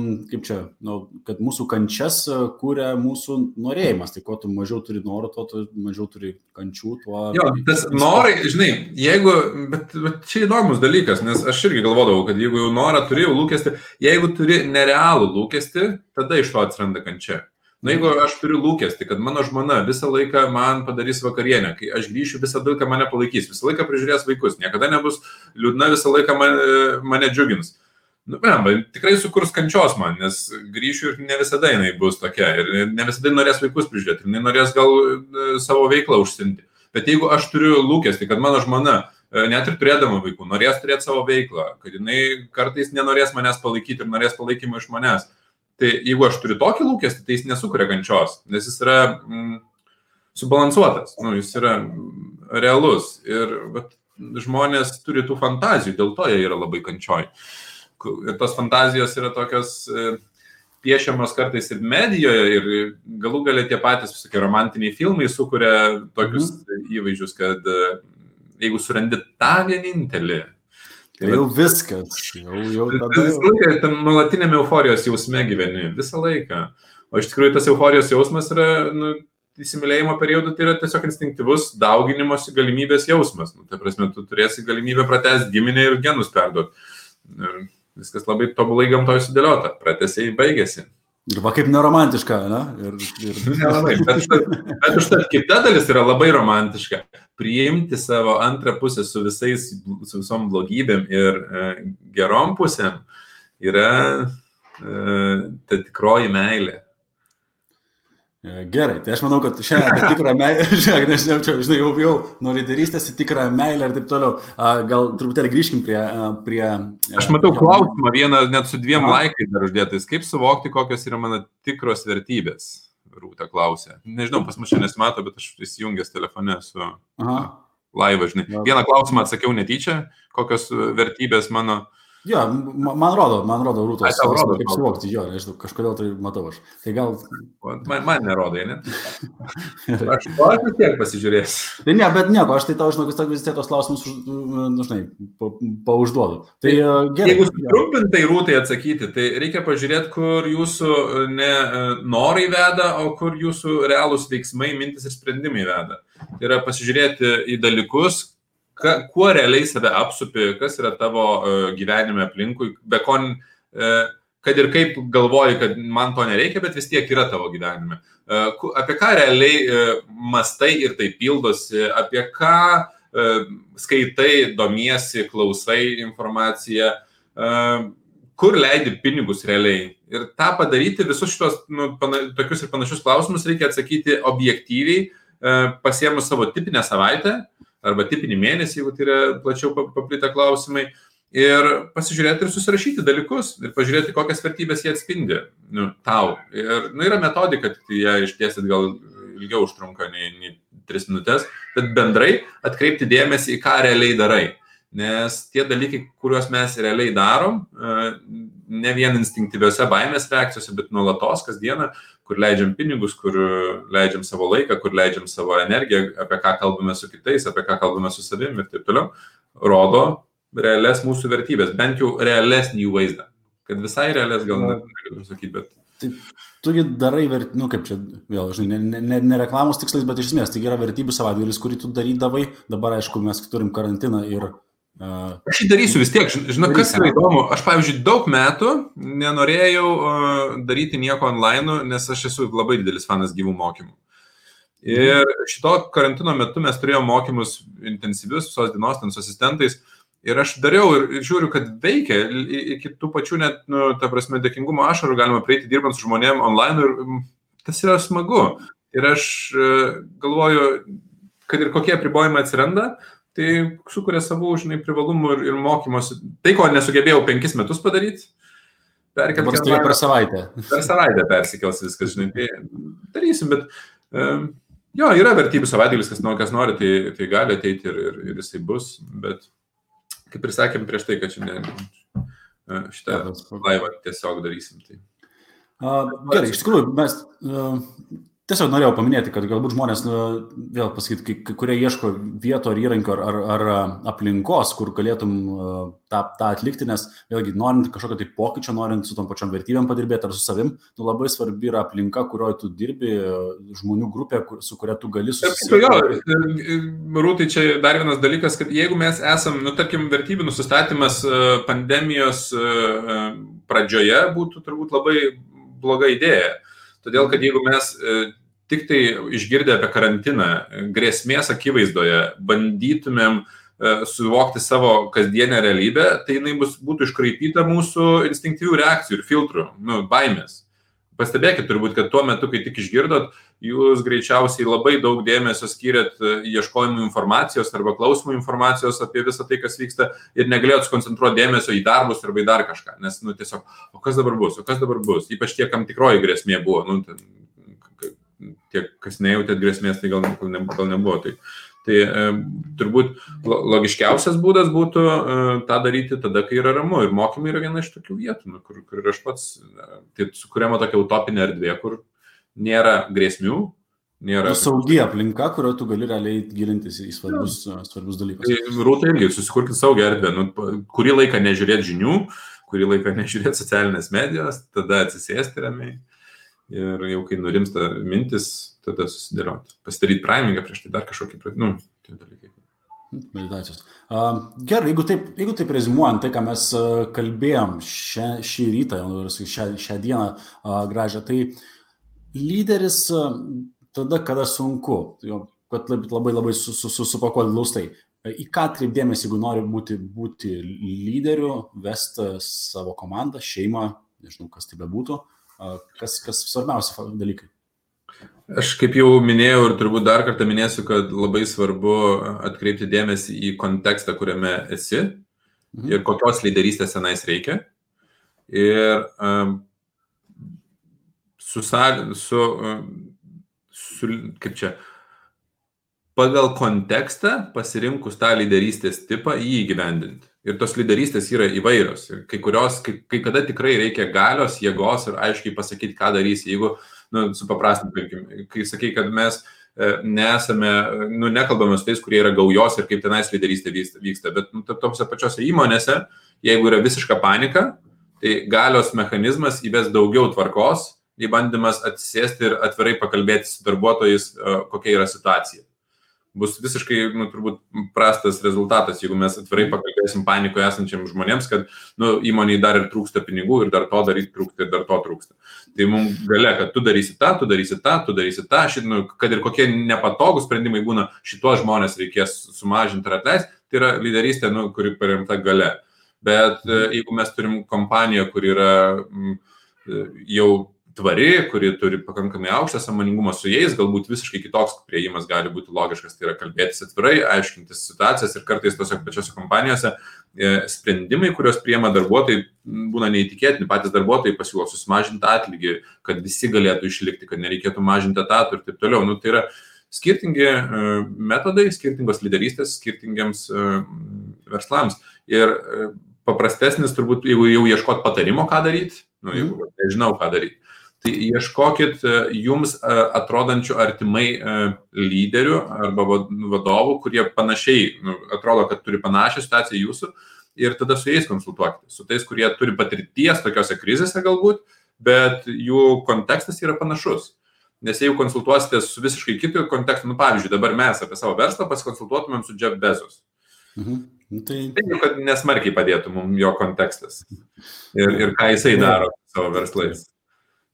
kad mūsų kančias kūrė mūsų norėjimas. Tai kuo tu mažiau turi norų, tuo tu mažiau turi kančių. Jo, tas norai, žinai, bet čia įdomus dalykas, nes aš irgi galvodavau, kad jeigu jau norą turi, jau lūkestį, jeigu turi nerealų lūkestį, tada iš to atsiranda kančia. Jeigu aš turiu lūkestį, kad mano žmona visą laiką man padarys vakarienę, kai aš grįšiu, visą laiką mane palaikys, visą laiką prižiūrės vaikus, niekada nebus liūdna, visą laiką mane džiugins. Tikrai sukurs kančios man, nes grįšiu ir ne visada jinai bus tokia, ir ne visada norės vaikus prižiūrėti, jinai norės gal savo veiklą užsiimti. Bet jeigu aš turiu lūkestį, kad mano žmona, net ir turėdama vaikų, norės turėti savo veiklą, kad jinai kartais nenorės manęs palaikyti ir norės palaikymą iš manęs, tai jeigu aš turiu tokį lūkestį, tai jis nesukuria kančios, nes jis yra subalansuotas, jis yra realus. Ir žmonės turi tų fantazijų, dėl to jie yra labai kančioj. Ir tos fantazijos yra tokios piešiamos kartais ir medijoje, ir galų gale tie patys visokie romantiniai filmai sukuria tokius įvaizdžius, kad jeigu surandi tą vienintelį, tai jau viskas, jau tada... Visą laiką tam nuolatiniame euforijos jausme gyveni, visą laiką. O iš tikrųjų tas euforijos jausmas yra, įsimylėjimo periodu, tai yra tiesiog instinktyvus dauginimosi galimybės jausmas. Tai prasme, tu turėsi galimybę pratęsti giminę ir genus perduoti. Ir viskas labai tobulai gamtoje sudėliota, pratęsiai baigėsi. Ir va kaip neromantiška, ne? Nelabai, bet užtat kita dalis yra labai romantiška. Priimti savo antrą pusę su visom blogybėm ir gerom pusėm yra ta tikroji meilė. Gerai, tai aš manau, kad šiandien tikrą meilę, žinai, jau nuo lyderystės į tikrą meilę ir taip toliau. Gal truputėlį grįžkim prie... Aš matau klausimą vieną, net su 2 laikais dar uždėtais. Kaip suvokti, kokios yra mano tikros vertybės? Rūta klausė. Nežinau, pas mus šiandien nesimato, bet aš įsijungęs telefone su laivą, žinai. Vieną klausimą atsakiau netyčia, kokios vertybės mano... Jo, man rodo Rūtos, kaip suvokti, jo, nežinau, kažkodėl tai matau aš. Tai gal... Man nerodo, ne? Aš vis tiek pasižiūrėsiu. Tai ne, bet nieko, aš tai tau, žinau, vis tiek tos klausimus, žinai, paužduodu. Tai gerai. Jeigu trumpintai Rūtai atsakyti, tai reikia pažiūrėti, kur jūsų ne norai veda, o kur jūsų realūs veiksmai, mintis ir sprendimai veda. Tai yra pasižiūrėti į dalykus, kuo realiai save apsupi, kas yra tavo gyvenime aplinkui, kad ir kaip galvoji, kad man to nereikia, bet vis tiek yra tavo gyvenime. Apie ką realiai mastai ir tai pildosi, apie ką skaitai, domiesi, klausai informaciją, kur leidi pinigus realiai. Ir tą padaryti, visus šitos tokius ir panašius klausimus reikia atsakyti objektyviai, pasiėmus savo tipinę savaitę, arba tipinį mėnesį, jeigu tai yra plačiau paplitę klausimai, ir pasižiūrėti ir susirašyti dalykus, ir pažiūrėti, kokias vertybės jie atspindi tau. Ir yra metodika, tai ją išdėstyt gal ilgiau užtrunka nei 3 minutės, bet bendrai atkreipti dėmesį į ką realiai darai. Nes tie dalykai, kuriuos mes realiai darom, ne vien instinktyviose baimės reakcijose, bet nuolatos kasdieną, kur leidžiam pinigus, kur leidžiam savo laiką, kur leidžiam savo energiją, apie ką kalbame su kitais, apie ką kalbame su savimi ir taip toliau, rodo realias mūsų vertybės, bent jau realesnį jų vaizdą. Kad visai realės gal negaliu sakyti, bet... Tai tugi darai, kaip čia, vėl, žinai, ne reklamos tikslais, bet iš esmės, tai yra vertybių savaitgalis, kurį tu darydavai, dabar, aišku, mes turim karantiną ir... Aš jį darysiu vis tiek, žinau, kas yra įdomu, aš, pavyzdžiui, daug metų nenorėjau daryti nieko online, nes aš esu labai didelis fanas gyvų mokymų. Ir šito karantino metu mes turėjome mokymus intensyvius, visos dienos, ten su asistentais, ir aš dariau ir žiūriu, kad veikia, iki tų pačių net, ta prasme, dėkingumo ašarų galima prieiti dirbant su žmonėm online ir tas yra smagu. Ir aš galvoju, kad ir kokie apribojimai atsiranda, tai sukuria savų, žinai, privalumų ir mokymosi. Tai, ko nesugebėjau 5 metus padaryti, Dabar staiga per savaitę. Per savaitę persikels viskas, žinai, tai darysim, bet jo, yra vertybių savaitėlis, kas nori, tai gali ateiti ir jisai bus, bet kaip ir sakėm prieš tai, kad šiandien šitą laivą tiesiog darysim. Tai. Gerai, iš tikrųjų, mes tiesiog norėjau paminėti, kad galbūt žmonės, vėl pasakyti, kurie ieško vieto ar įrankio ar aplinkos, kur galėtum tą atlikti, nes vėlgi, norint kažkokio tai pokyčio, norint su tom pačiom vertybėm padirbėti ar su savim, labai svarbi yra aplinka, kurioje tu dirbi, žmonių grupė, su kuria tu gali susitikti. Rūtai, čia dar vienas dalykas, kad jeigu mes esam, tarkim, vertybių nusistatymas pandemijos pradžioje būtų turbūt labai bloga idėja. Todėl, kad jeigu mes tik tai išgirdę apie karantiną, grėsmės akivaizdoje, bandytumėm suvokti savo kasdienę realybę, tai jinai būtų iškraipyta mūsų instinktyvių reakcijų ir filtrų, baimės. Pastebėkit turbūt, kad tuo metu, kai tik išgirdot, jūs greičiausiai labai daug dėmesio skyrėt ieškojimų informacijos arba klausimų informacijos apie visą tai, kas vyksta ir negalėjot skoncentruoti dėmesio į darbus arba į dar kažką, nes tiesiog, o kas dabar bus, ypač tie, kam tikroji grėsmė buvo, tie, kas nejautėt grėsmės, tai gal nebuvo. Tai turbūt logiškiausias būdas būtų tą daryti tada, kai yra ramu. Ir mokymai yra viena iš tokių vietų, kur aš pats, tai sukuriama tokia utopinė erdvė, kur nėra grėsmių, nėra... Saugi aplinka, kurio tu gali realiai gilintis į svarbius dalykus. Tai Rūta irgi, susikurkit saugią erdvę. Kurį laiką nežiūrėti žinių, kurį laiką nežiūrėti socialinės medijos, tada atsisėsti ramiai. Ir jau kai nurimsta mintis, tada susidėlioti. Pasidaryti primingą prieš tai dar kažkokį, tie dalykai. Meditacijos. Gerai, jeigu taip rezimuojant tai, ką mes kalbėjom šį rytą, šią dieną gražią, tai lyderis tada, kada sunku, kad labai supakuoti glaustai. Į ką atkreipdėmės, jeigu nori būti lyderiu, vesti savo komandą, šeimą, nežinau, kas tai bebūtų, kas svarbiausia dalykai? Aš kaip jau minėjau ir turbūt dar kartą minėsiu, kad labai svarbu atkreipti dėmesį į kontekstą, kuriame esi ir kokios lyderystės tenais reikia. Ir pagal kontekstą pasirinkus tą lyderystės tipą jį įgyvendinti. Ir tos lyderystės yra įvairios. Ir kai kada tikrai reikia galios, jėgos ir aiškiai pasakyti, ką darysi. Jeigu, supaprastinkim, kai sakai, kad mes nekalbame su tais, kurie yra gaujos ir kaip tenais lyderystė vyksta, bet tose pačiose įmonėse, jeigu yra visiška panika, tai galios mechanizmas įves daugiau tvarkos, į bandymas atsisėsti ir atvirai pakalbėti su darbuotojais, kokia yra situacija. Bus visiškai, turbūt, prastas rezultatas, jeigu mes atvirai pakalbėsim panikoje esančiam žmonėms, kad įmoniai dar ir trūksta pinigų ir dar to daryti trūksta ir dar to trūksta. Tai mums galia, kad tu darysi tą, kad ir kokie nepatogūs sprendimai būna, šitos žmonės reikės sumažinti ar atleisti, tai yra lyderystė, kuri paremta galia. Bet jeigu mes turim kompaniją, kuri yra jau tvari, kuri turi pakankamai aukštą sąmoningumą su jais, galbūt visiškai kitoks priėjimas gali būti logiškas, tai yra kalbėtis atvirai, aiškintis situacijas ir kartais tose pačiose kompanijose sprendimai, kurios priima darbuotojai, būna neįtikėtini, patys darbuotojai pasiūlo susimažinti atlygį, kad visi galėtų išlikti, kad nereikėtų mažinti etatų ir taip toliau. Tai yra skirtingi metodai, skirtingos lyderystės, skirtingiams verslams. Ir paprastesnis turbūt, jeigu jau ieškot patarimo, ką daryti, jeigu nežinau, ką daryti. Tai ieškokit jums atrodančių artimai lyderių arba vadovų, kurie panašiai atrodo, kad turi panašią situaciją jūsų ir tada su jais konsultuokite. Su tais, kurie turi patirties tokiose krizėse galbūt, bet jų kontekstas yra panašus. Nes jeigu konsultuosite su visiškai kitu kontekstu, pavyzdžiui, dabar mes apie savo verslą pasikonsultuotumėm su Jeff Bezos. Tai kad nesmarkiai padėtų mums jo kontekstas ir ką jisai daro savo verslais.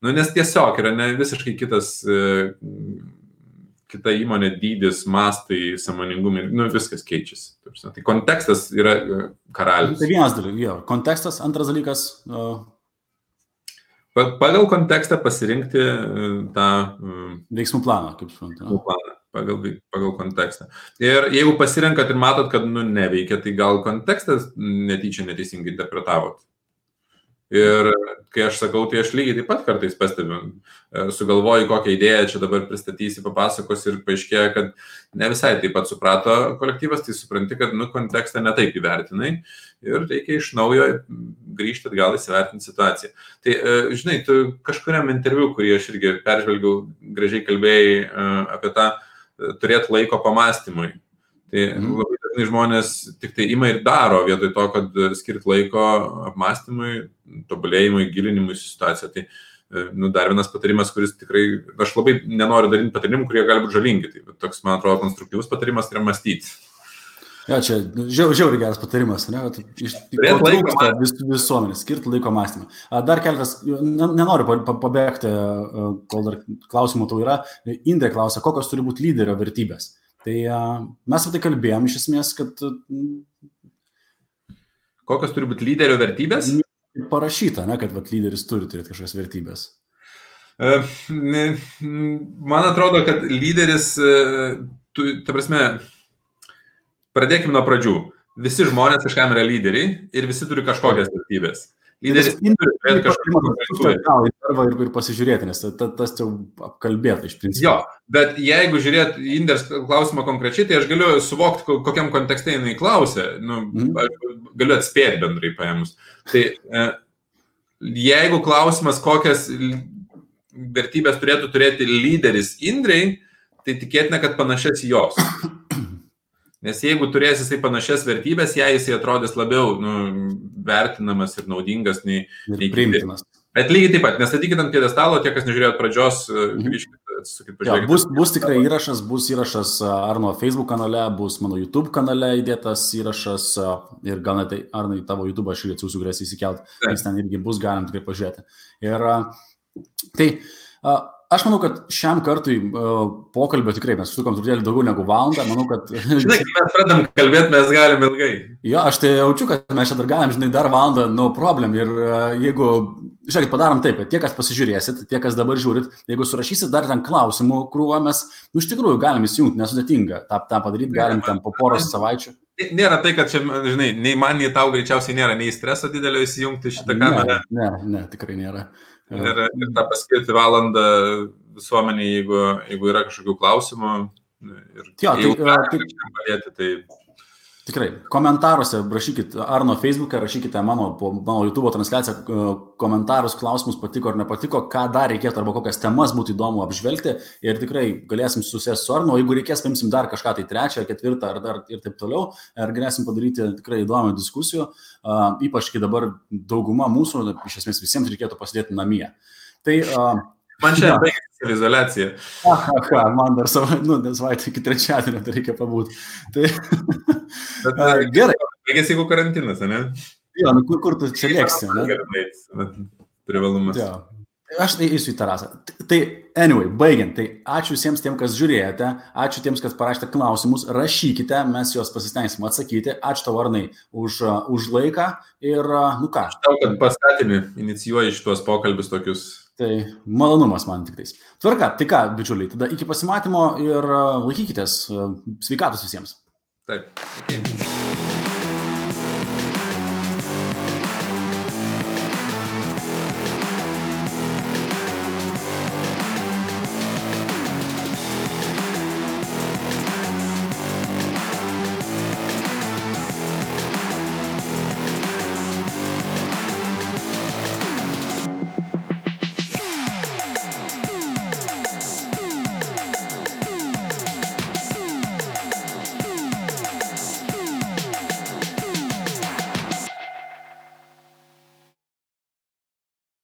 Nes tiesiog yra ne visiškai kita įmonė dydis, mastai, sąmoningumai, viskas keičiasi. Tai kontekstas yra karalius. Tai vienas dalykas, kontekstas, antras dalykas. Pagal kontekstą pasirinkti tą veiksmų planą, kaip suprantu. Pagal kontekstą. Ir jeigu pasirenkat ir matot, kad neveikia, tai gal kontekstas netyčia neteisingai interpretavot. Ir kai aš sakau, tai aš lygiai taip pat kartais pastebiu, sugalvoju kokią idėją čia dabar pristatysi, papasakos ir paaiškėja, kad ne visai taip pat suprato kolektyvas, tai supranti, kad kontekstą netaip įvertinai ir reikia iš naujo grįžti atgal įsivertinti situaciją. Tai, žinai, tu kažkuriam interviu, kurį aš irgi peržvelgiau, gražiai kalbėjai apie tą turėti laiko pamastymui. Tai labai dažnai žmonės tik tai ima ir daro vietoj to, kad skirt laiko apmąstymui, tobulėjimui, gilinimui į situaciją. Tai dar vienas patarimas, kuris tikrai, aš labai nenoriu daryti patarimų, kurie gali būti žalingi. Tai toks, man atrodo, konstruktyvus patarimas yra mąstyti. Ja, čia žiauriai geras patarimas, ne? Trūksta visuomenės, skirti laiko mąstymą. Dar keletas, nenoriu pabėgti, kol dar klausimų tau yra. Indrė klausia, kokios turi būti lyderio vertybės. Tai mes apie tai kalbėjom iš esmės, kad... Kokios turi būti lyderio vertybės? Parašyta, ne, kad lyderis turi turėti kažkokias vertybės. Man atrodo, kad lyderis, ta prasme, pradėkime nuo pradžių. Visi žmonės kažkam yra lyderiai ir visi turi kažkokias vertybės. Lyderis turi kažkokią ir pasižiūrėti, nes tas jau apkalbėta iš principo. Jo, bet jeigu žiūrėt Indrės klausimą konkrečiai, tai aš galiu suvokti, kokiam kontekste jinai klausė, galiu atspėti bendrai paėmus. Tai jeigu klausimas, kokias vertybės turėtų turėti lyderis Indrei, tai tikėtina, kad panašias jos. Nes jeigu turės jisai panašias vertybės, jisai atrodys labiau vertinamas ir naudingas nei priimtinas. Bet lygiai taip pat, nestatykit ant pjedestalo, tie, kas nežiūrėjot pradžios, grįžkite, atsisukit, pažiūrėkite. Bus tikrai bus įrašas Arno Facebook kanale, bus mano YouTube kanale įdėtas įrašas ir gal net Arnai tavo YouTube aš irgi atsiųsiu, galėsi įsikelt, nes ten irgi bus galim tikrai pažiūrėti. Ir tai... Aš manau, kad šiam kartui pokalbio tikrai mes sukom truputėlį daugiau negu valandą. Manau, kad... Žinai, kai mes pradam kalbėti, mes galim ilgai. Jo, aš tai jaučiu, kad mes čia dar galim, žinai, dar valandą, no problem. Ir jeigu, žiūrėkit, padarom taip, kad tie, kas pasižiūrėsit, tie, kas dabar žiūrit, jeigu surašysit dar ten klausimų krūvą, mes, iš tikrųjų, galim įsijungti, nesudėtinga. tą padaryti galim ten po poros savaičių. Nėra tai, kad čia, žinai, nei man, nei tau greičiausiai nėra nei streso didelio įsijungti šitą kamerą. Ne, tikrai nėra. Ir tą paskirti valandą visuomenį, jeigu yra kažkokių klausimų. Tai... Tikrai, komentaruose rašykit Arno Facebook'e, rašykite mano YouTube transliaciją komentarus, klausimus, patiko ar nepatiko, ką dar reikėtų arba kokias temas būtų įdomu apžvelgti ir tikrai galėsim susėsti su Arno, jeigu reikės, paimsim dar kažką tai 3, 4 ar dar ir taip toliau, ir galėsim padaryti tikrai įdomią diskusijų, ypač kai dabar dauguma mūsų, iš esmės visiems reikėtų pasidėti namie. Tai... Man čia baigėsi izoliacija. Man dar savaitę iki 3 tai reikia pabūti. Tai... Gerai. Baigėsi jeigu karantinas, ne? Jo, kur tu čia lėksi, ne? Privalumas. Jo. Aš tai eisiu į terasą. Tai, anyway, baigiant. Tai ačiū visiems tiem, kas žiūrėjote. Ačiū tiems, kas parašėte klausimus. Rašykite, mes juos pasistengsim atsakyti. Ačiū tau, Arnai, už laiką. Ir, ką? Aš tau, kad paskatini, inicijuoji šitos pokalbius tokius. Tai malonumas man tik tais. Tvarka, tai ką, bičiuliai, tada iki pasimatymo ir laikykitės. Sveikatos visiems. Taip.